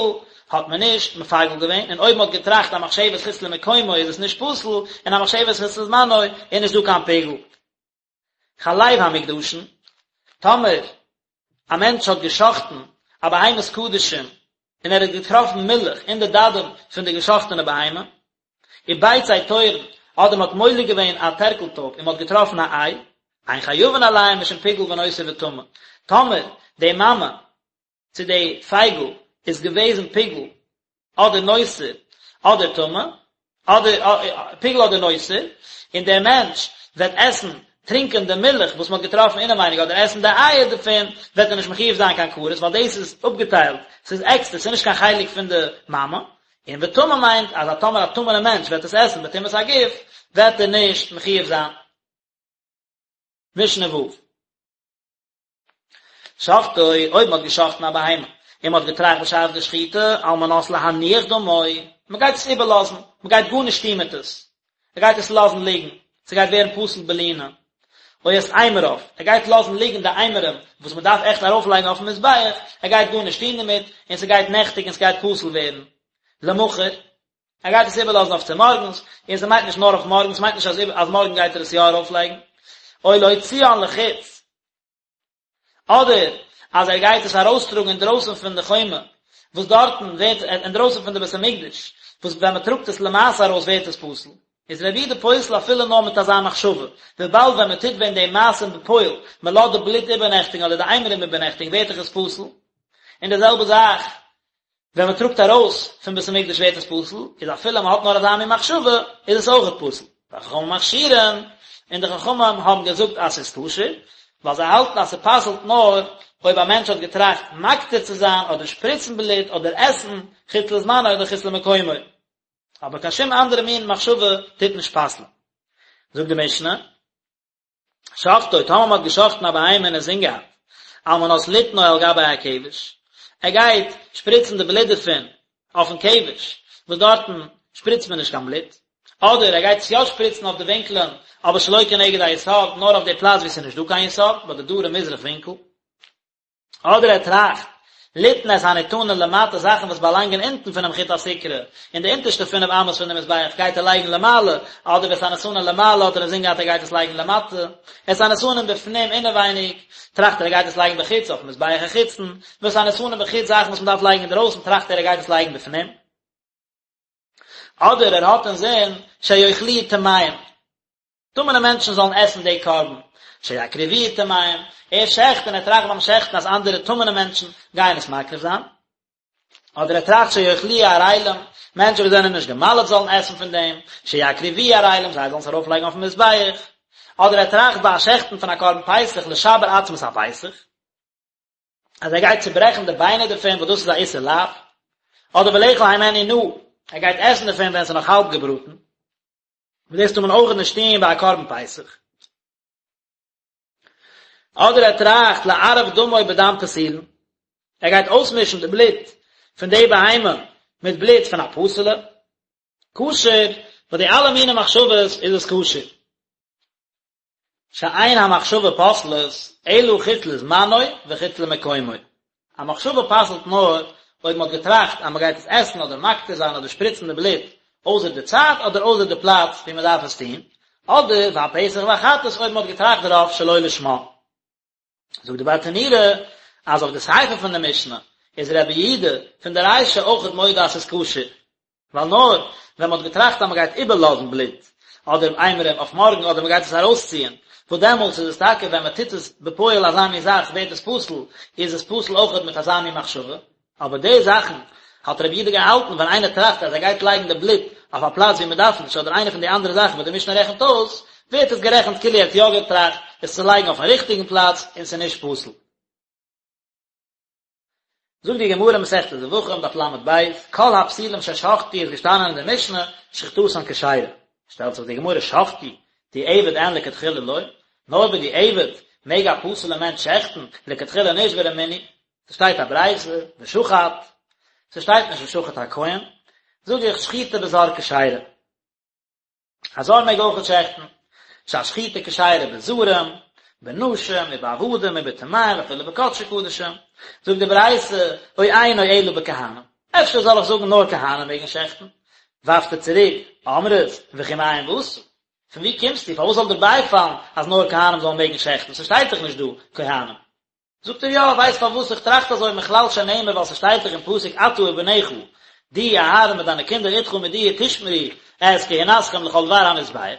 האט מען נישט מפגל געווען, און אויב מען האט געטראכט א מחשבת חוץ למקומו איז עס נישט פסול, און א מחשבת חוץ לזמנו איז נישט דא קיין פיגול. חלב המוקדשין, טאמער א מענטש האט גע'שחט'ן א בהמת קדשים און ער האט געטראפן מילך אין די דדים פון די גע'שחט'ענע בהמה, וביצי תורין, אדער מען האט מולק געווען א טערקל טויב און מען האט געטראפן א איי, אין חייבין עליהם משום פיגול ונותר וטמא, טאמער די מאמע צו די פייגל איז געוועזן פיגול אדער נותר אדער טמא, אדער פיגול אדער נותר, און דער מענטש וועט עסן, טרינקען די מילך וואס מען האט געטראפן אינעווייניג אדער עסן די אייער דערפון, וועט ער נישט מחויב זיין קיין כרת, ווייל דאס איז אפגעטיילט, ס'איז עקסטער, ס'איז נישט קיין חלק פון די מאמע. און וטמא מיינט אז א טאמער א טמא'נע מענטש וועט עס עסן בטומאת הגוף, וועט ער נישט מחויב זיין. משנה ו'. שחטו, אויב מ'האט געשחט'ן א בהמה, און מ'האט געטראכט בשעת די שחיטה, על מנת להניח דמו, מ'גייט עס איבערלאזן, מ'גייט גארנישט טון מיט עס, ער גייט עס לאזן ליגן, ס'גייט ווערן פסול בלינה, או את אימוריו, ער גייט לאזן ליגן די אימורים וואס מ'דארף עכט ארויפלייגן אויפן מזבח, ער גייט גארנישט טון דערמיט, און ס'גייט נעכטיגן און ס'גייט פסול ווערן. למחר, ער גייט עס איבערלאזן אויף צומארגנס, און ס'מיינט נישט נאר אויף מארגן, ס'מיינט נישט אז מארגן גייט ער עס יא ארויפלייגן, או להוציאן לחוץ, אדער אז ער גייט עס ארויסטראגן אינדרויסן פון די חומה, וואס דארטן ווערט, אינדרויסן פון די בית המקדש, וואס ווען מען טראגט עס למעשה ארויס ווערט עס פסול, איז רבי יהודה פוסל אפילו נאר מיט אזא מחשבה, וויבאלד ווען מען טוט ווען די מעשים בפועל, מען לאזט די בלוט איבערנעכטיגן אדער די אימורים איבערנעכטיגן ווערט דאך עס פסול, און די זעלבע זאך ווען מען טראגט ארויס פון בית המקדש ווערט עס פסול, איז אפילו מען האט נאר אזא מין מחשבה איז עס אויכעט פסול. וחכמים מכשירין, און די חכמים האבן געזאגט אז ס'איז כשר, ווייל זיי האלטן אז ס'פסל'ט נאר אויב א מענטש האט געטראכט מקטיר צו זיין אדער שפריצן בלוט אדער עסן חוץ לזמנו אדער חוץ למקומו. אבער קיין שום אנדערע מין מחשבה טוט נישט פסל'ן. זאגט די משנה. שחטו, טאמער מ'האט געשחט'ן א בהמה און אינזין געהאט, על מנת ליתנו על גבי הכבש, ער גייט שפריצן די בלוט דערפון אויפן כבש, וואס דארטן שפריצט מען נישט קיין בלוט, אדער ער גייט עס יא שפריצן אויף די ווינקלען, אבער שלא כנגד היסוד, נאר אויף די פלאץ וואו ס'איז נישט דא קיין יסוד, ביי די דרום מזרח ווינקל. אדער ער טראכט. ליתן את הניתנין למטה זאכן וואס באלאנגען אונטן פונעם חוט הסיקרא, אין די אונטערשטע פינף אמות פון די מזבח גייט ער לייגן למעלה, אדער ואת הניתנין למעלה האט ער אינזין געהאט ער גייט עס לייגן למטה, את הניתנין בפנים אינעווייניג, טראכט ער ער גייט עס לייגן בחוץ אויפן מזבח החיצון, ואת הניתנין בחוץ זאכן וואס מען דארף לייגן אינדרויסן טראכט ער ער גייט עס לייגן בפנים. אדער ער האט אינזין שיאכלוהו טמאים. טמא'נע מענטשן זאלן עסן די קרבן, שיקריבוהו טמאים, ער שעכט און ער טראכט ביים שעכטן אז אנדערע טמא'נע מענטשן גייען עס מקריב זיין, אדער ער טראכט שיאכלוהו ערלים, מענטשן וואס זענען נישט גע'מל'ט זאלן עסן פון דעם, שיקריבוהו ערלים, זיי זאלן עס ארויפלייגן אויפן מזבח, אדער ער טראכט ביי א שעכטן פון א קרבן פסח לשבר עצמות הפסח, אז ער גייט צוברעכן די ביינער דערפון וואס דאס איז א איסור לאו, אדער ולאכול הימנו נא, ער גייט עסן דערפון ווען עס איז נאך האלב געבראטן. וואס דאס טאר מען אויך נישט טון ביי א קרבן פסח. אדער ער טראכט לערב דמו בדם פסולין, ער גייט אויסמישן די בלוט פון די בהמה מיט בלוט פון א פסול'ע, כשר, ביי די אלע מיני מחשבות איז עס כשר. שאין המחשבה פוסלת אלא חוץ לזמנו וחוץ למקומו. א מחשבה פסל'ט נאר אויב מ'האט געטראכט אז מ'גייט עס עסן אדער מקטיר זיין אדער שפריצן די בלוט אויסער די צייט אדער אויסער די פלאץ ווי מ'דארף עס טון, אדער והפסח והחטאת אויב מ'האט געטראכט דערויף שלא לשמה. זאגט די ברטנורא אז אויף די סיפא פון די משנה איז רבי יהודה פון די רישא אויכעט מודה אז ס'איז כשר, ווייל נאר ווען מ'האט געטראכט אז מ'גייט איבערלאזן בלוט אדער אימורים אויף מארגן אדער מ'גייט עס ארויסציען, וואס דעמאלטס איז עס טאקע ווען מ'טוט עס בפועל אזא מין זאך ווערט עס פסול, איז עס פסול אויכעט מיט אזא מין מחשבה. אבער די זאכן האט רבי יהודה געהאלטן ווען איינער טראכט אז ער גייט לייגן די בלוט אויף א פלאץ ווי מען דארף נישט אדער איינע פון די אנדערע זאכן וואס די משנה רעכנט אויס, ווערט עס גערעכנט כאילו ער האט יא געטראכט עס צו לייגן אויפן ריכטיגן פלאץ און ס'איז נישט פסול. זאגט די גמרא מסכת זבחים דף ל"ב, כל הפסולים ששחטו איז געשטאנען אין די משנה שחיטתן כשרה, שטעלט זיך די גמרא שחטו דיעבד אין לכתחילה לא, נאר בדיעבד מעג א פסול'ע מענטש שעכטן, לכתחילה נישט ורמינהי, ס'שטייט א ברייתא, ושחט, ס'שטייט נישט ושחט הכהן, זאג איך שחיטה בזר כשרה. א זר מעג אויכעט שעכטן, שהשחיטה כשרה בזרים, בנשים ובעבדים ובטמאים ואפילו בקדשי קדשים. זאגט די ברייתא, או אינו אלא בכהנים. אפשר זאל איך זאגן נאר כהנים מעגן שעכטן? ווארפט ער צוריק, אמרת, וכי מאין באת? פון וואו קומסטו? פארוואס זאל דיר בייפאלן אז נאר כהנים זאלן מעגן שעכטן? ס'שטייט דאך נישט דא כהנים. זאגט ער יא, ווייסט פארוואס איך טראכט אזוי מכלל שנאמר ווייל ס'שטייט דאך אין פסוק אתה ובניך, דו אהרן מיט דיינע קינדער אתך מיט דיר תשמרו את כהונתכם לכל דבר המזבח,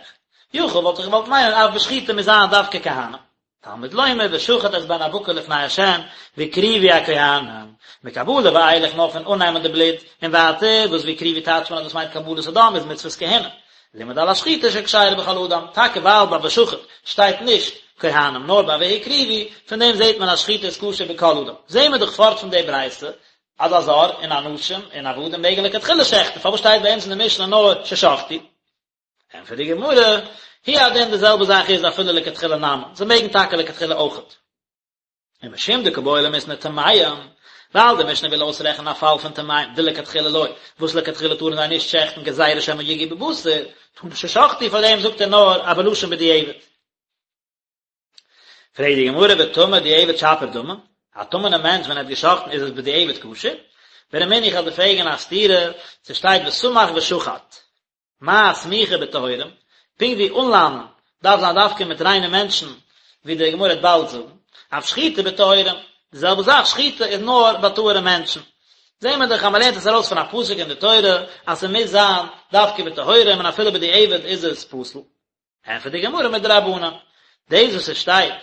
יכול וואלט איך געוואלט מיינען אף בשחיטה מוז זיין דווקא כהנים. תלמוד לומר ושחט את בן הבקר לפני ה' והקריבו הכהנים, מקבלה ואילך נאר פון אננעמען די בלוט און ווייטער וואס והקריבו טייטשט מען אז דאס מיינט קבלת הדם איז מצוות כהונה, לימד על השחיטה שכשרה בכל אדם, טאקע ווייל ביי ושחט שטייט נישט כהנים נאר ביי והקריבו, פון דעם זעט מען אז שחיטה איז כשר בכל אדם. זעהן מיר דאך פארט פון די ברייתא אז א זר און אנשים און עבדים מעגן לכתחילה שעכטן, פארוואס שטייט ביי אונז אין די משנה נאר ששחטו? ענטפערט די גמרא, הוא הדין די זעלבע זאך איז אפילו לכתחילה נמי, זיי מעגן טאקע לכתחילה אויכעט. ומשום דקא בעי למיתני טמאים, ווייל די משנה וויל אויסרעכענען א פאל פון טמאים, דלכתחילה לא, וואס לכתחילה טארן זיי נישט שעכטן גזירה שמא יגעו בבשר, תנא ששחטו, פאר דעם זאגט ער נאר א בלשון בדיעבד. פרעגט די גמרא וטמא דיעבד שפיר דמי, א טמא'נע מענטש ווען ער האט געשאכטן איז עס בדיעבד כשר? ורמינהי איך וועל דיר פרעגן א סתירה, ס'שטייט וסמך ושחט. מה סמיכה בטהורים, פונקט ווי אנלאנען דארף זיין דווקא מיט ריינע מענטשן, ווי די גמרא וועט באלד זאגן, אף שחיטה בטהורים, די זעלבע זאך שחיטה איז נאר ביי טהור'ע מענטשן. זעהן מיר דאך אז מ'לערנט עס ארויס פון א פסוק אין די תורה אז ס'מוז זיין דווקא בטהורים און אפילו בדיעבד איז עס פסול. ענטפערט די גמרא מדרבנן, דאס וואס עס שטייט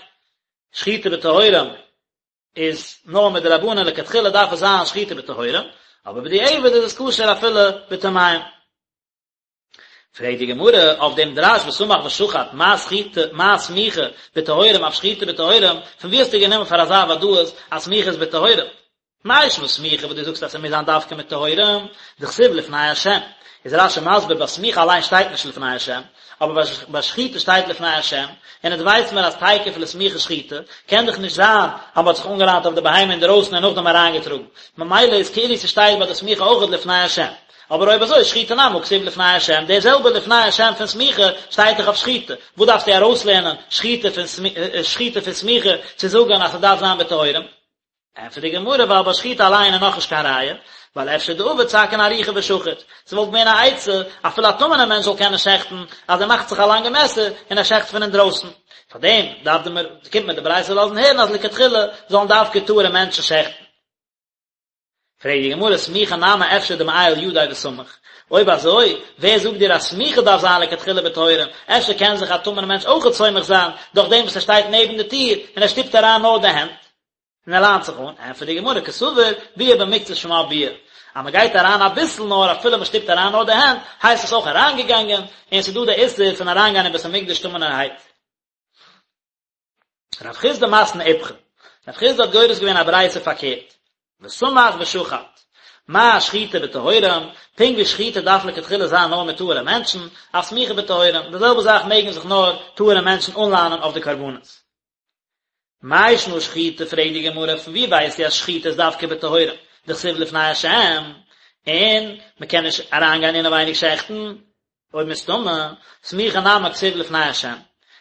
שחיטה בטהורים איז נאר מדרבנן לכתחילה דארף עס זיין שחיטה בטהורים, אבער בדיעבד איז עס כשר אפילו בטמאים. פרעגט די גמרא אויף דעם דרש וסמך ושחט מה סחיטה מה סמיכה בטהורים אף שחיטה בטהורים, פון וואו האסטו גענומען פאר אזא ודאות אז סמיכה איז בטהורים? מאי שנא סמיכה וואס דו זאגסט אז ס'מוז זיין דווקא מיט טהורים, דכתיב לפני השם, איז רש"י מסביר ביי סמיכה אליין שטייט נישט לפני השם, אבער ביי שחיטה שטייט לפני השם, און אונז ווייס מיר אז תיכף לסמיכה שחיטה, קען דאך נישט זיין אז מ'האט זיך אנגעליינט אויף די בהמה אינדערויסן און נאכדעם אריינגעטראגן, ממילא איז כאילו ס'שטייט ביי די סמיכה אויכעט לפני השם. אבער אויב אזוי שחיטה נמי הא כתיב לפני השם, דער זעלבער לפני השם פון סמיכה שטייט דאך אויף שחיטה, וואס דארפסטו ארויסלערנען שחיטה פון שחיטה פון סמיכה צו זאגן אז ס'דארף זיין בטהורים? ענטפערט די גמרא ווייל ביי שחיטה אליין איז נאכנישט קיין ראיה, ווייל אפשר דעביד סכין ארוכה ושחיט, ס'וואלט געווען א עצה אפילו א טמא'נער מענטש זאל קענען שעכטן, אז ער מאכט זיך א לאנגע מעסער און ער שעכט פון אינדרויסן. פארדעם דארף די קומט מיר די ברייתא לאזן הערן אז לכתחילה זאלן דווקא טהור'ע מענטשן שעכטן. פרעגט די גמרא סמיכה נמי אפשר דמעייל ידיה וסמיך, אויב אזוי ווער זאגט דיר אז סמיכה דארף זיין לכתחילה בטהורים, אפשר קען זיך א טמא'נער מענטש אויכעט סומך זיין דורך דעם וואס ער שטייט נעבן די טיר און ער שטופט אריין נאר די הענט און ער ליינט זיך אן, ענטפערט די גמרא קסבר ביאה במקצת שמה ביאה, אז מען גייט אריין אביסל נאר אפילו מען שטופט אריין נאר די הענט הייסט עס אויך אריינגעגאנגען, און ס'איז דא די איסור פון אריינגיין אין בית המקדש טמא'נערהייט. רב חסדא מתני איפכא, רב חסדא האט גורס געווען א ברייתא פארקערט, וסמך ושחט, מה שחיטה בטהורים, פונקט ווי שחיטה דארף לכתחילה זיין נאר מיט טהור'ע מענטשן, אף סמיכה בטהורים, די זעלבע זאך מעגן זיך נאר טהור'ע מענטשן אנליינען אויף די קרבנות. מאי שנא שחיטה פרעגט די גמרא פון ווי ווייסטו אז שחיטה איז דווקא בטהורים, דכתיב לפני השם, און מ'קען נישט אריינגיין אינעווייניג שעכטן, אויב מסתמא, סמיכה נמי כתיב לפני השם.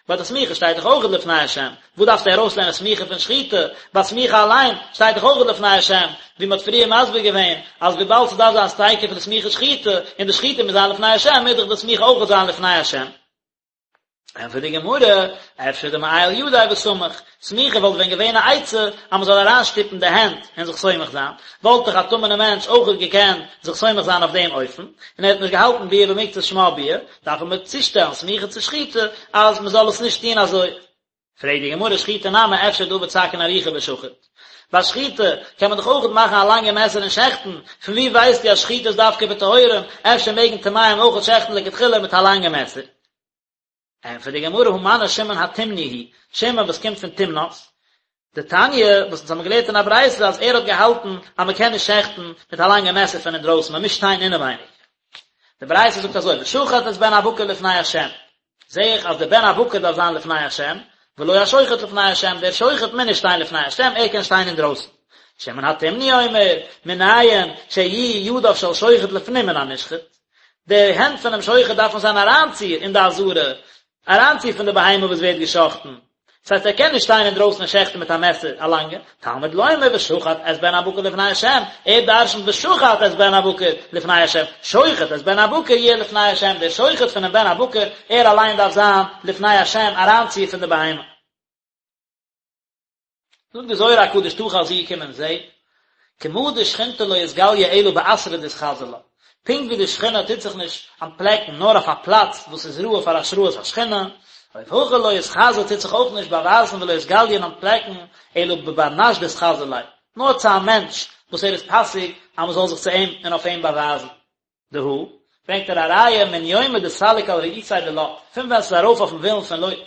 ביי די סמיכה שטייט דאך אויך לפני השם. וואס דארפסטו ארויסלערנען סמיכה פון שחיטה? ביי סמיכה אליין שטייט דאך אויך לפני השם, ווי מ'האט פריער מסביר געווען אז וויבאלד ס'דארף זיין תיכף לסמיכה שחיטה, און די שחיטה מוז זיין לפני השם, מוז דאך די סמיכה אויך זיין לפני השם. ענטפערט די גמרא, אפשר דמעייל ידיה וסמיך, סמיכה וואלט ווען געווען א עצה אז מען זאל אריינשטופן די הענט און זיך סומך זיין, וואלט דאך א טמא'נער מענטש אויכעט געקענט זיך סומך זיין אויף דעם אופן, און ער האט נישט געהאלטן ביאה במקצת שמה ביאה, דארף מען צושטעלן סמיכה צו שחיטה אז מען זאל עס נישט טון אזוי. פרעגט די גמרא שחיטה נמי אפשר דעביד סכין ארוכה ושחיט. ביי שחיטה קען מען דאך אויכעט מאכן א לאנגע מעסער און שעכטן, פון וואו ווייסטו אז שחיטה איז דווקא בטהורים, אפשר מעגן טמאים אויכעט שעכטן לכתחילה מיט א לאנגע מעסער? ענטפערט די גמרא הא מני שמעון התימני היא, שמעון וואס קומט פון תמנת, דתניא, וואס אונז האבן געלערנט אין א ברייתא אז ער האט געהאלטן אז מען קען נישט שעכטן מיט א לאנגע מעסער פון אינדרויסן, מען מוז שטיין אינעווייניג. די ברייתא זאגט אזוי, ושחט את בן הבקר לפני השם, זעה איך אז דער בן הבקר דארף זיין לפני השם, ולא השוחט לפני השם, דער שוחט מוז נישט שטיין לפני השם, ער קען שטיין אינדרויסן. שמעון התימני אומר, מנין שיהיו ידיו של שוחט לפנים מן הנשחט, די הענט פונעם שוחט דארפן זיין אריינציר אין די עזרה, אריינציר פון די בהמה וואס ווערט געשחטן, דאס הייסט ער קען נישט שטיין אינדרויסן און שעכטן מיט א מעסער א לאנגע, תלמוד לומר ושחט את בן הבקר לפני השם, ער דרשנ'ט ושחט את בן הבקר לפני השם, שוחט את בן הבקר יהיה לפני השם, דער שוחט פונעם בן הבקר, ער אליין דארף זיין לפני השם אריינציר פון די בהמה. זאגט די זוהר הקדוש תא חזי קום און זעה, כמה דשכינתא לא אתגליא אלא באתרא דאתחזי לה, פונקט ווי די שכינה טוט זיך נישט אנטפלעקן נאר אויף א פלאץ וואס איז ראוי פאר השראת השכינה, אוף הכי לא אתחזי טוט זיך אויך נישט באווייזן ולא אתגליא און אנטפלעקן אלא בבר נש דאתחזי ליה, נאר צו א מענטש וואס ער איז פאסיג אז מען זאל זיך צו אים און אויף אים באווייזן. דהא, ברענגט ער א ראיה מן יומא דסליק על רעותיה דלוט, פון ווען ס'איז ארויף אויפן ווילן פון לוט,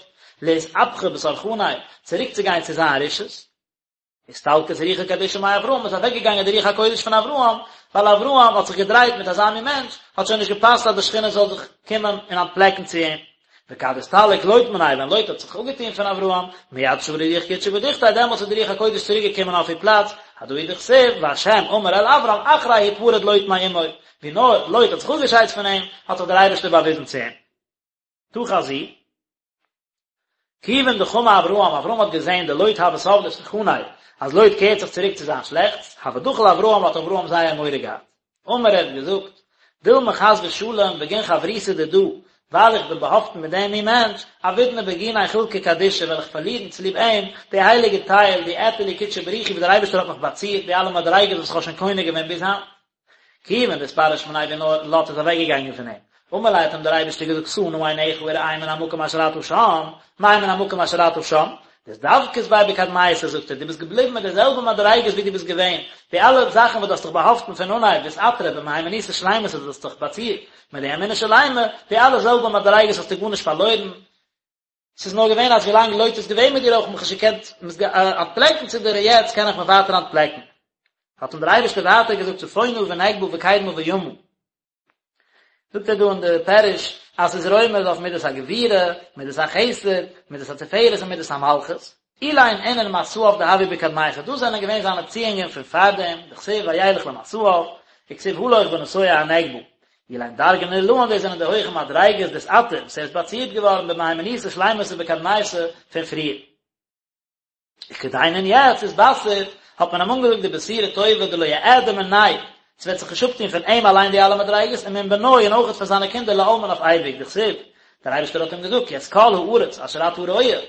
לאתהפכא בתרחניה, צוריק צו גיין צו זיין רשעות. אסתלקת רוחא קדישא מאברהם, איז אוועק געגאנגען די רוח הקודש פון אברהם, ווייל אברהם האט זיך געדרייט מיט אזא מין מענטש, האט שוין נישט געפאסט אז די שכינה זאל זיך קומען און אנטפלעקן צו אים. וכד אסתלק לוט מניה, ווען לוט האט זיך אפגעטון פון אברהם, מיד שרא רוח קודשא בדוכתיה, דעמאלטס איז די רוח הקודש צוריק געקומען אויף איר פלאץ, הדא הוא דכתיב, והשם אמר אל אברם אחרי הפרד לוט מעמו, ווי נאר לוט האט זיך אפגעשיידט פון אים, האט זיך דער אייבערשטער באוויזן צו אים. תא חזי. כיוון דחמא אברהם, אברהם האט געזען דלוט הוה תב לתרחניה, אז לוט קערט זיך צוריק צו זיין שלעכטס, הוה דחיל אברהם האט אברהם זייער מורא געהאט. אמר ער האט געזאגט, דילמא חס ושלום בגין חברותא דידא, ווייל איך בין באהאפטן מיט דעם מין מענטש, אבידנא בגיניה חולקא קדישא וועל איך פארלירן צוליב אים די הייליגע טייל, די אעטר לי קודשא בריך הוא וואס דער אייבערשטער האט מיך באצירט, די אלע מדריגות וואס איך האב שוין קונה געווען ביז היינט. כיוון דאתפרש מניה ווי נאר לוט איז אוועק געגאנגען פון אים, אמר ליה האט אים דער אייבערשטער געזאגט שא נא עיניך וראה מן המקום אשר אתה שם, מאי מן המקום אשר אתה שם? דאתדבקת ביה בקדמיתא זאגט ער, דו ביסט געבליבן מיט די זעלבע מדריגות ווי דו ביסט געווען, די אלע זאכן וואס דו האסט דיך באהאפטן פון אנהייב ואתעטרת במהימנותא שלימתא דו האסט דיך באצירט מיט די אמונה שלימה, די אלע זעלבע מדריגות האסטו גארנישט פארלוירן, ס'איז נאר געווען אז ווילאנג לוט איז געווען מיט דיר האב איך מיך נישט געקענט אנטפלעקן צו דיר און יעצט קען איך מיך ווייטער אנטפלעקן. האט אים דער אייבערשטער ווייטער געזאגט צפונה ונגבה וקדמה וימה. זאגט ער דא אין די פירוש אז ס'איז רומז אויף מידת הגבורה, מידת החסד, מידת התפארת און מידת המלכות. אלין אינון מסעיו דהוו בקדמיתא, דאס זענען געווען זיינע ציאונגען פון פארדעם, דכתיב וילך למסעיו, וכתיב הלוך ונסוע הנגבה. אלין דרגין עילאין דאס זענען די הויכע מדריגות דאתעטר וואס ער איז באצירט געווארן במהימנותא שלימתא בקדמיתא פון פריער. וכדין און יעצט אתבשר. האט מען אים אנגעזאגט די בשורה טובה דלא יעדי מיניה, ס'וועט זיך נישט אפטון פון אים אליין די אלע מדריגות, ומן בנוי און אויכעט פון זיינע קינדער לעלמין אויף אייביג, דכתיב, דער אייבערשטער האט אים געזאגט, כי את כל הארץ אשר אתה רואה,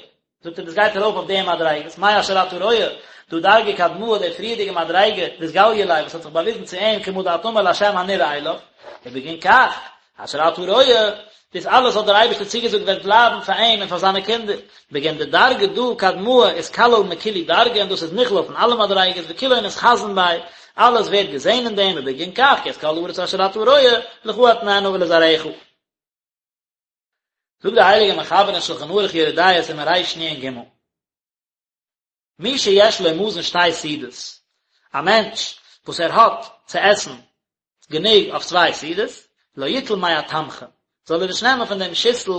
זאגט ער דאס גייט ארויף אויף די מדריגות, מאי אשר אתה רואה, דא דרגא קדמאה די פריערדיגע מדריגה, דאתגליא ליה וואס האט זיך באוויזן צו אים כמה דאת אמר להשם הנראה אליו, ובגין כך, אשר אתה רואה, דאס אלעס האט דער אייבערשטער צוגעזאגט וועט בלייבן פאר אים און פאר זיינע קינדער, בגין דדרגא דא קדמאה אתכליל מכולהו דרגין און דאס איז נכלל פון אלע מדריגות וכולהון אתחזון ביה, אלעס ווערט געזען אין דעם ובגין כך כי את כל הארץ אשר אתה רואה, לך אתננה ולזרעך. זאגט דער הייליגער מחבר אין שלחן ערוך יורה דעה סימן רנ"ג, מי שיש לו מזון שתי סעודות, א מענטש וואס ער האט צו עסן גענוג אויף צוויי סעודות, לא יטול מהתמחוי, זאל ער נישט נעמען פון דעם שיסל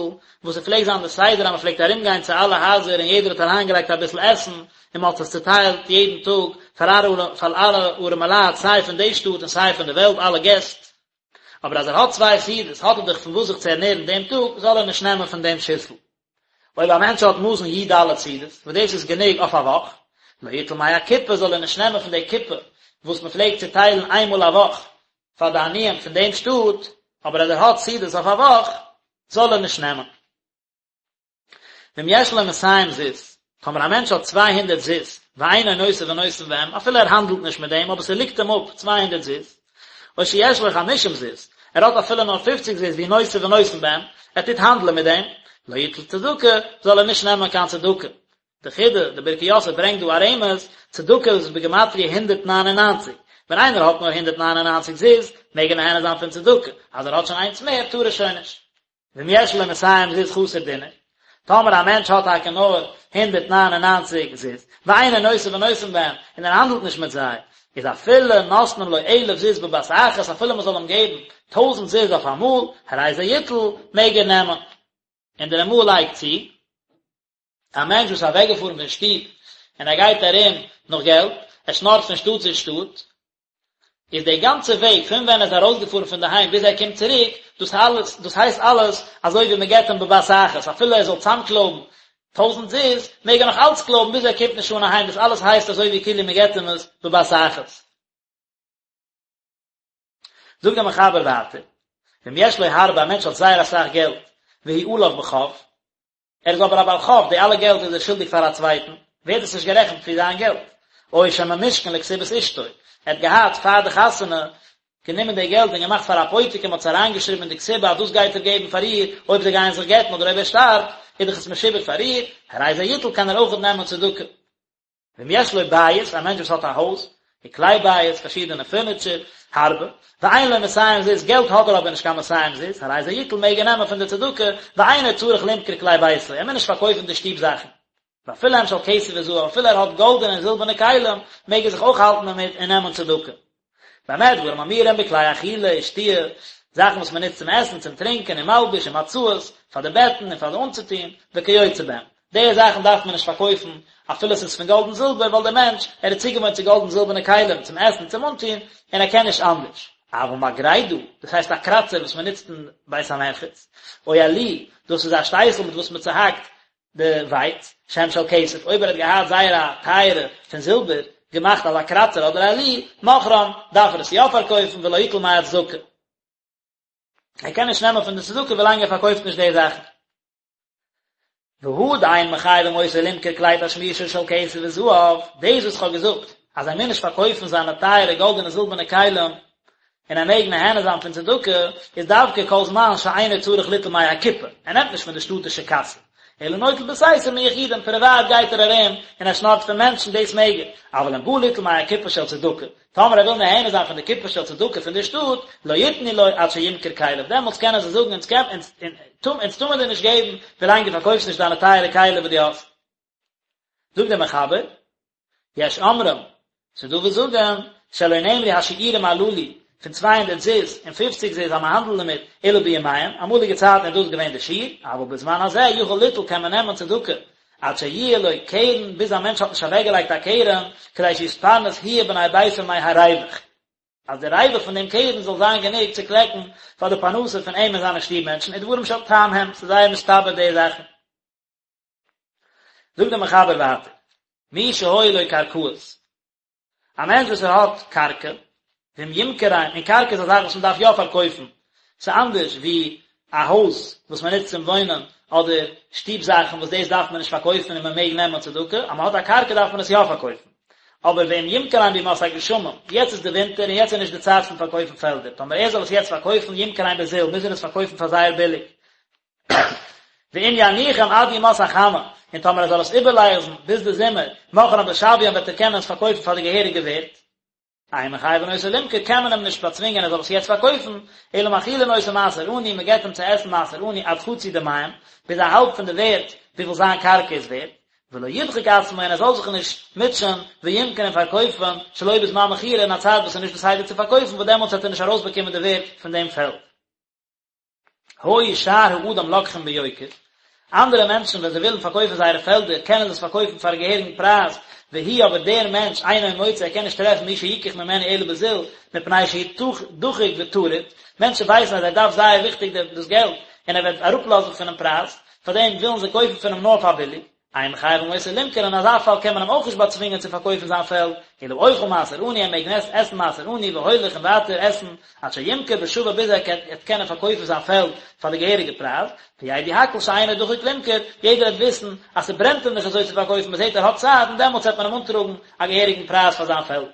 וואס עס פלעגט זיין די סדר אז מען פלעגט ארום גיין צו אלע הייזער און יעדער האט אריינגעלייגט אביסל עסן און מען האט עס צוטיילט יעדן טאג פאר אלע ארעמעלייט סיי פון די שטאט און סיי פון די וועלט אלע געסט. אבער אז ער האט צוויי סעודות האט ער דאך פון וואס זיך צו ערנערן דעם טאג, זאל ער נישט נעמען פון דעם שיסל. אויב א מענטש האט מזון י"ד סעודות, וואס דאס איז גענוג אויף א וואך, לא יטול מהקופה זאל ער נישט נעמען פון די קופה וואס מען פלעגט צוטיילן איין מאל א וואך פאר די עניים פון דעם שטאט, אבער אז ער האט סעודות אויף א וואך, זאל ער נישט נעמען. ואם יש לו מאתים זוז, טאמער א מענטש האט 200 זוז, ואינו נושא ונותן בהם, אפילו ער האנדלט נישט מיט דעם, אבער ס'ליגט אים אפ 200 זוז, או שיש לו חמישים זוז, ער האט אפילו נאר פופציג זוז והוא נושא ונותן בהם, ער טוט האנדלען מיט דעם, לא יטול צדקה, זאל ער נישט נעמען קיין צדקה. די חידא, די ברכי יוסף ברענגט דא א רמז, צדקה איז בגימטריא 199, ווען איינער האט נאר 199 זוז, מעג ער נהנה זיין פון צדקה, אז ער האט שוין איינס מער, טאר ער שוין נישט. ואם יש לו מאתים זוז חסר דינר, טאמער א מענטש האט טאקע נאר 199 זוז, ואינו נושא ונותן בהם, און ער האנדלט נישט מיט זיי, איז אפילו נותנים לו אלף זוז בבת אחת, אפילו מען זאל אים געבן טויזנט זוז אויף אמאל, הרי זה יטול, מעג ער נעמען. און דער רמ"א לייגט צו, א מענטש וואס איז אוועקגעפארן פון שטוב און ער גייט ארום נאך געלט, ער שנארט פון שטאט צו שטאט, איז די גאנצע וועג פון ווען ער איז ארויסגעפארן פון די היים ביז ער קומט צוריק, דאס אלעס, דאס הייסט אלעס אזוי ווי מען געבט אים בבת אחת, אפילו ער זאל צאמקלויבן טויזנט זוז, מעג ער נאך אלץ קלויבן ביז ער קומט נישט אן אהיים, דאס אלעס הייסט אזוי ווי כאילו מען געבט אים עס בבת אחת. זאגט דער מחבר ווייטער, ואם יש לו הרבה, א מענטש האט זייער אסאך געלט, והוא עליו בחוב, ער איז אבער א בעל חוב, די אלע געלט איז ער שולדיג פאר א צווייטן, ווערט עס נישט גערעכנט ווי זיין געלט. או שממושכן לכתובת אשתו, ער האט געהאט פאר די חתונה גענומען די געלט און געמאכט פאר א פויטיק און מען האט עס אריינגעשריבן אין די כתובה אז דאס גייט ער געבן פאר איר אויב זיי גייען זיך גט'ן אדער אויב ער שטארבט, איז דאך עס משועבד פאר איר, הרי זה יטול קען ער אויכעט נעמען צדקה. ואם יש לו בית, א מענטש וואס האט א הויז, וכלי בית, פארשידענע פורניטשער, הרבה, ואין לו מאתים זוז, געלט האט ער אבער נישט קיין מאתים זוז, הרי זה יטול מעג ער נעמען פון די צדקה, ואינו צריך למכור כלי ביתו, ער מוז נישט פארקויפן די שטוב זאכן. ואפילו הם של כסף וזהב, אפילו ער האט גאלדענע און זילבערנע כלים, מעג ער זיך אויך האלטן דערמיט און נעמען צדקה. במה דברים אמורים בכלי אכילה ושתיה, זאכן וואס מען נוצט צום עסן, צום טרינקען, ומלבוש ומצעות, פאר די בעטן און פאר די אנצוטון, וכיוצא בהם. די זאכן דארף מען נישט פארקויפן אפילו עס איז פון גאלד און זילבער, ווייל דער מענטש, ער איז צוגעוואוינט צו גאלד און זילבערנע כלים צום עסן און צום אנטון, און ער קען נישט אנדערש. אבל מגרדה, דאס הייסט א קראצער וואס מען נוצט אין בית המרחץ, או עלי, דאס איז א שטייסל מיט וואס מען צוהאקט די ווייץ, שהם של כסף, אויב ער האט געהאט זייער א טייערע פון זילבער, געמאכט אזא קראצער אדער עלי, מוכרם, דארף ער עס יא פארקויפן ולא יטול מהצדקה. ער קען נישט נעמען פון די צדקה ווילאנג ער פארקויפט נישט די זאכן. והא דאין מחייבים אותו למכור כלי תשמישו של כסף וזהב, דאס וואס כ'האב געזאגט אז ער מוז נישט פארקויפן זיינע טייערע גאלדענע און זילבערנע כלים, און ער מעג נהנה זיין פון צדקה, איז דווקא כל זמן שאינו צריך ליטול מהקופה, ער נעמט נישט פון די שטאטישע קאסע, אלא נוטל בסתר מיחידים, פריוואט גייט ער ארום און ער שנארט פון מענטשן, דאס מעג ער, אבל אם בא ליטול מהקופה של צדקה, טאמער ער וויל נהנה זיין פון די קופה של צדקה פון די שטאט, לא יתנו לו עד שימכור כליו, דעמאלטס קענען זיי זאגן אונז אונז טאר מען דיר נישט געבן ווילאנג דו פארקויפסט נישט דיינע טייערע כלים וואס דו האסט. זאגט דער מחבר, יש אומרים, ס'איז דא וואס זאגן, שלא נאמרו השיעורים הללו, פון צוויי הונדערט זוז און פופציג זוז אז מען האנדלט דערמיט, אלא בימיהם, אמאליגע צייטן איז דאס געווען די שיעור, אבל בזמן הזה יכול ליטול קען מען נעמען צדקה, עד שיהיה לו קרן, ביז א מענטש האט נישט אוועקגעלייגט א קרן, כדי שיתפרנס הוא ובני ביתו מהרווח. אז די רווח פון דעם קרן זאל זיין גענוג צו קלעקן פאר די פרנסה פון אים און זיינע שטוב מענטשן, ודברים של טעם הם, ס'איז זייער מסתבר די זאכן. זאגט דער מחבר ווייטער, מי שהיו לו קרקעות. א מענטש וואס ער האט קרקע, ואם ימכרם, און קרקע איז א זאך וואס מען דארף יא פארקויפן, ס'איז אנדערש ווי א הויז וואס מען נוצט צום וואוינען, אדער שטוב זאכן וואס דאס דארף מען נישט פארקויפן און מען מעג נעמען צדקה, אז מען האט א קרקע דארף מען עס יא פארקויפן. אבער ואם ימכרם בימות הגשמים, יעצט איז די ווינטער און יעצט איז נישט די צייט פון פארקויפן פעלדער, טאמער ער זאל עס יעצט פארקויפן ימכרם בזול, מוז ער עס פארקויפן פאר זייער ביליג. ואם יניחם עד ימות החמה, און טאמער ער זאל עס איבערלאזן ביז די זומער, מוכרם בשוויים וועט ער קענען עס פארקויפן פאר די געהעריגע ווערט. אין מחייבין אותו למכור קען מען אים נישט באצווינגען ער זאל עס יעצט פארקויפן, אלא מאכילין אותו מעשר עני, מען געבט אים צו עסן מעשר עני עד חצי דמיהם, ביז א האלב פון די ווערט וויפיל זיין קרקע איז ווערט, ולא ידחק עצמו און ער זאל זיך נישט מוטשען וימכור און פארקויפן שלא בזמן מכירה אין א צייט וואס איז נישט בסדר צו פארקויפן וואס דעמאלטס וועט ער נישט ארויסבאקומען די ווערט פון דעם פעלד. היו שאר האדם לוקחים ביוקר, אנדערע מענטשן ווען זיי ווילן פארקויפן זייערע פעלדער קענען זיי עס פארקויפן פאר א געהעריגן פרייז, והוא אבער דער מענטש אינו מוצא ער קען נישט טרעפן מי שיקח ממנו אלא בזול, מפני שהוא דחוק וטרוד, מענטשן ווייסן אז ער דארף זייער וויכטיג דאס געלט און ער וועט אראפלאזן פונעם פרייז, פארדעם ווילן זיי קויפן פון אים נאר פאר ביליג. אין מחייבין אותו למכור אין אזא פאל קען מען אים אויך נישט באצווינגען צו פארקויפן זיין פעלד, אלא אוכל מעשר עני ער מעג עסן מעשר עני והולך און ווייטער עסן עד שימכור בשווה ביז ער וועט קענען פארקויפן זיין פעלד פאר די געהעריגע פרייז, וידעו הכל שאינו דחוק למכור, יעדער וועט וויסן אז ס'ברענט אים נישט אזוי צו פארקויפן מ'זעט ער האט צייט און דעמאלטס וועט מען אים אנטראגן א געהעריגן פרייז פאר זיין פעלד.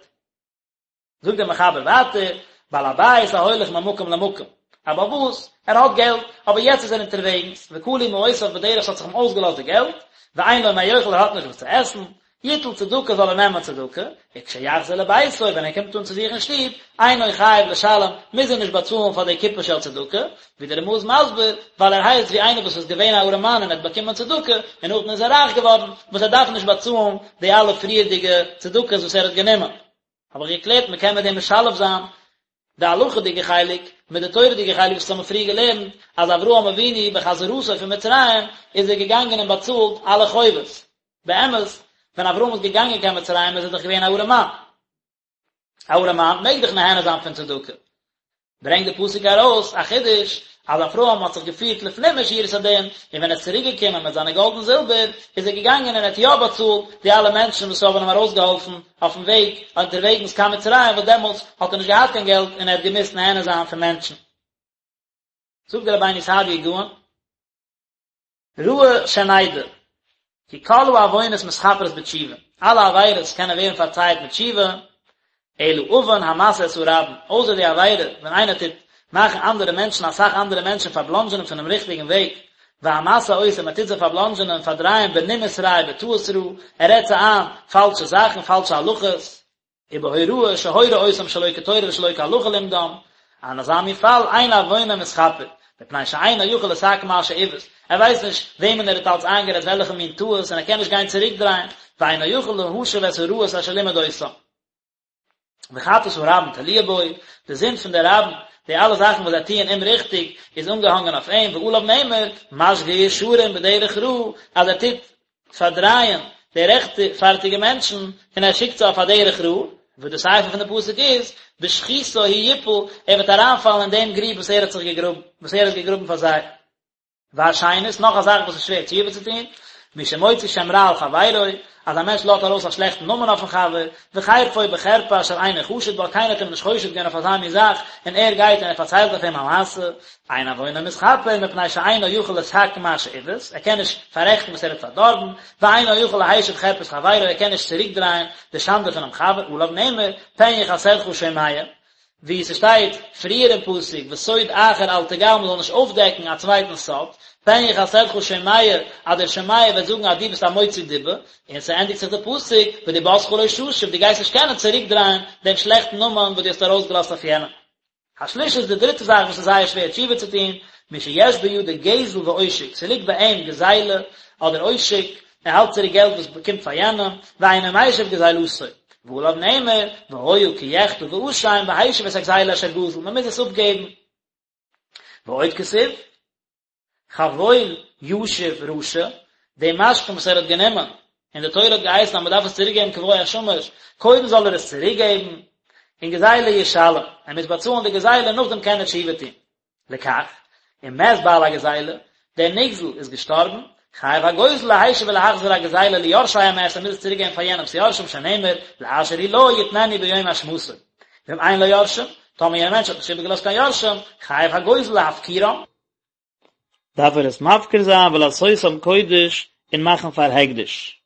זאגט דער מחבר ווייטער, בעל הבית ההולך ממקום למקום, א בעל הבית, ער האט געלט, אבער יעצט איז ער אונטערוועגנס, וכלו מעותיו בדרך ס'האט זיך אים אויסגעלאזט די געלט, ואין לו מה יאכל ער האט נישט וואס צו עסן, יטול צדקה זאל ער נעמען צדקה, וכשיחזור לביתו ווען ער קומט אן צו זיך אין שטוב, אינו חייב לשלם, מוז ער נישט באצאלן פאר די קופה של צדקה, ווי דער רמ"א איז מסביר, ווייל ער הייסט ווי איינער וואס איז געווען א ארעמאן און ער האט באקומען צדקה, און נאכדעם איז ער רייך געווארן, וואס ער דארף נישט באצאלן די אלע פריערדיגע צדקות וואס ער האט גענומען. האב איך געקלערט מען קען מיט דעם משלב זיין די הלכה'דיגע חלק מיט די תורה'דיגע חלק וואס האבן פריער געלערנט אז אברהם אבינו בחזרתו פון מצרים איז ער געגאנגען און באצאלט אלע חובות. באמת ווען אברהם איז געגאנגען קיין מצרים איז ער דאך געווען א ארעמאן. א ארעמאן מעג דאך נהנה זיין פון צדקה. ברענגט די פסוק ארויס א חידוש אז אברהם האט זיך געפירט לפנים משורת הדין, און ווען ער איז צוריק געקומען מיט זיינע גאלד און זילבער, איז ער געגאנגען און ער האט יא באצאלט די אלע מענטשן וואס האבן אים ארויסגעהאלפן אויפן וועג אונטערוועגנס קיין מצרים, וואס דעמאלטס האט ער נישט געהאט קיין געלט און ער האט געמוזט נהנה זיין פון מענטשן. זאגט דער רבינו סעדיה גאון. ראוי שנדע, כי כל העוונות מתכפרות בתשובה, אלע עבירות קענען ווערן פארצייעט מיט תשובה, אלא עוון המתעה את הרבים, אויסער די עבירה ווען איינער טוט מאכן אנדערע מענטשן אסאך אנדערע מענטשן פארבלאנדזשענען פונעם ריכטיגן וועג, והמתעה אותם, מען טוט זיי פארבלאנדזשענען, פארדרייען בנימוס רע ובטעות רעה, ער רעדט זיי איין פאלשע זאכן, פאלשע הלכות. ובהוראה שהורה אותם שלא כתורה ושלא כהלכה לימדם, אין אזא מין פאל אין עוונו מתכפר, מפני שאינו יכול לתקן מה שעיוות, ער ווייסט נישט וועמען ער האט אלץ איינגערעדט וועלכע מין טעות און ער קען נישט גיין צוריקדרייען, ואינו יכול להשיב את הרעות אשר לימד אותם. וחטאת הרבים תלויה בו, די זינד פון די רבים, די אלע זאכן וואס זיי טוען אומריכטיג, איז אנגעהאנגען אויף אים, ועליו נאמר, משגה ישרים בדרך רעה, אז ער טוט פארדרייען די רעכטפארטיגע מענטשן און ער שיקט זיי אויף א דרך רע, וואס די שכל פון די פסוק איז, בשחותו הוא יפול, ער וועט אריינפאלן אין דעם גריב וואס ער האט זיך געגראבן, וואס ער האט געגראבן פאר זיי. והשנית, נאך א זאך וואס איז שווער תשובה צו טון, מי שמוציא שם רע על חברו, אז א מענטש לאזט ארויס א שלעכטן נאמען אויפן חבר, וחרפו בחרפה אשר אינו חשוד בה, קיינער האט אים נישט חושד געווען אויף אזא מין זאך, און ער גייט און ער פארציילט אויף אים א מעשה, אין עוונו מתכפר מפני שאינו יכול לתקן מה שעיוות, ער קען נישט פאררעכטן וואס ער האט פארדארבן, ואינו יכול להשיב חרפת חברו, ער קען נישט צוריקדרייען די שאנדע פונעם חבר, עליו נאמר, פן יכסלך שומע, ווי ס'שטייט פריער אין פסוק, וסוד אחר אל תגל, מ'זאל נישט אויפדעקן א צווייטנס סוד, פן יכסלך שומע, אז דער שומע וועט זאגן אז דו ביסט א מוציא דיבה, און ס'ענדיגט זיך די פסוק, ודיבתך לא תשיב, דו גייסט נישט קענען צוריקדרייען דעם שלעכטן נאמען וואס דו האסט ארויסגעלאזט אויף יענעם. השלישית די דריטע זאך וואס איז זייער שווער תשובה צו טון, מי שיש בידו גזל ועושק, ס'ליגט ביי אים גזילה אדער עושק, ער האלט צוריק געלט וואס באקומט פאר יענעם, ואינו משיב גזילתו, ועליו נאמר, והיה כי יחטא ואשם והשיב את הגזילה אשר גזל, מען מוז עס אפגעבן. ועוד כתיב. חבול ישיב רשע, די משכון וואס ער האט גענומען, און די תורה האט געהייסן אז מען דארף עס צוריק געבן כבוא השמש, קודם זאל ער עס צוריק געבן, און גזילה ישלם, ער מוז באצאלן די גזילה נאכדעם קען ער תשובה טון. לכך, אם מת בעל הגזילה, דער נגזל איז געשטארבן, חייב הגוזל להשיב ולהחזיר הגזילה ליורשי המת, ער מוז עס צוריק געבן פאר יענעמ'ס יורשים שנאמר, לאשר הוא לו יתננו ביום השמתו. ואם אין לו יורשים, טאמער יענער מענטש האט נישט איבערגעלאזט קיין יורשים, חייב הגוזל להפקירם. דארף ער עס מפקיר זיין ולעשותם קודש און מאכן פאר הקדש.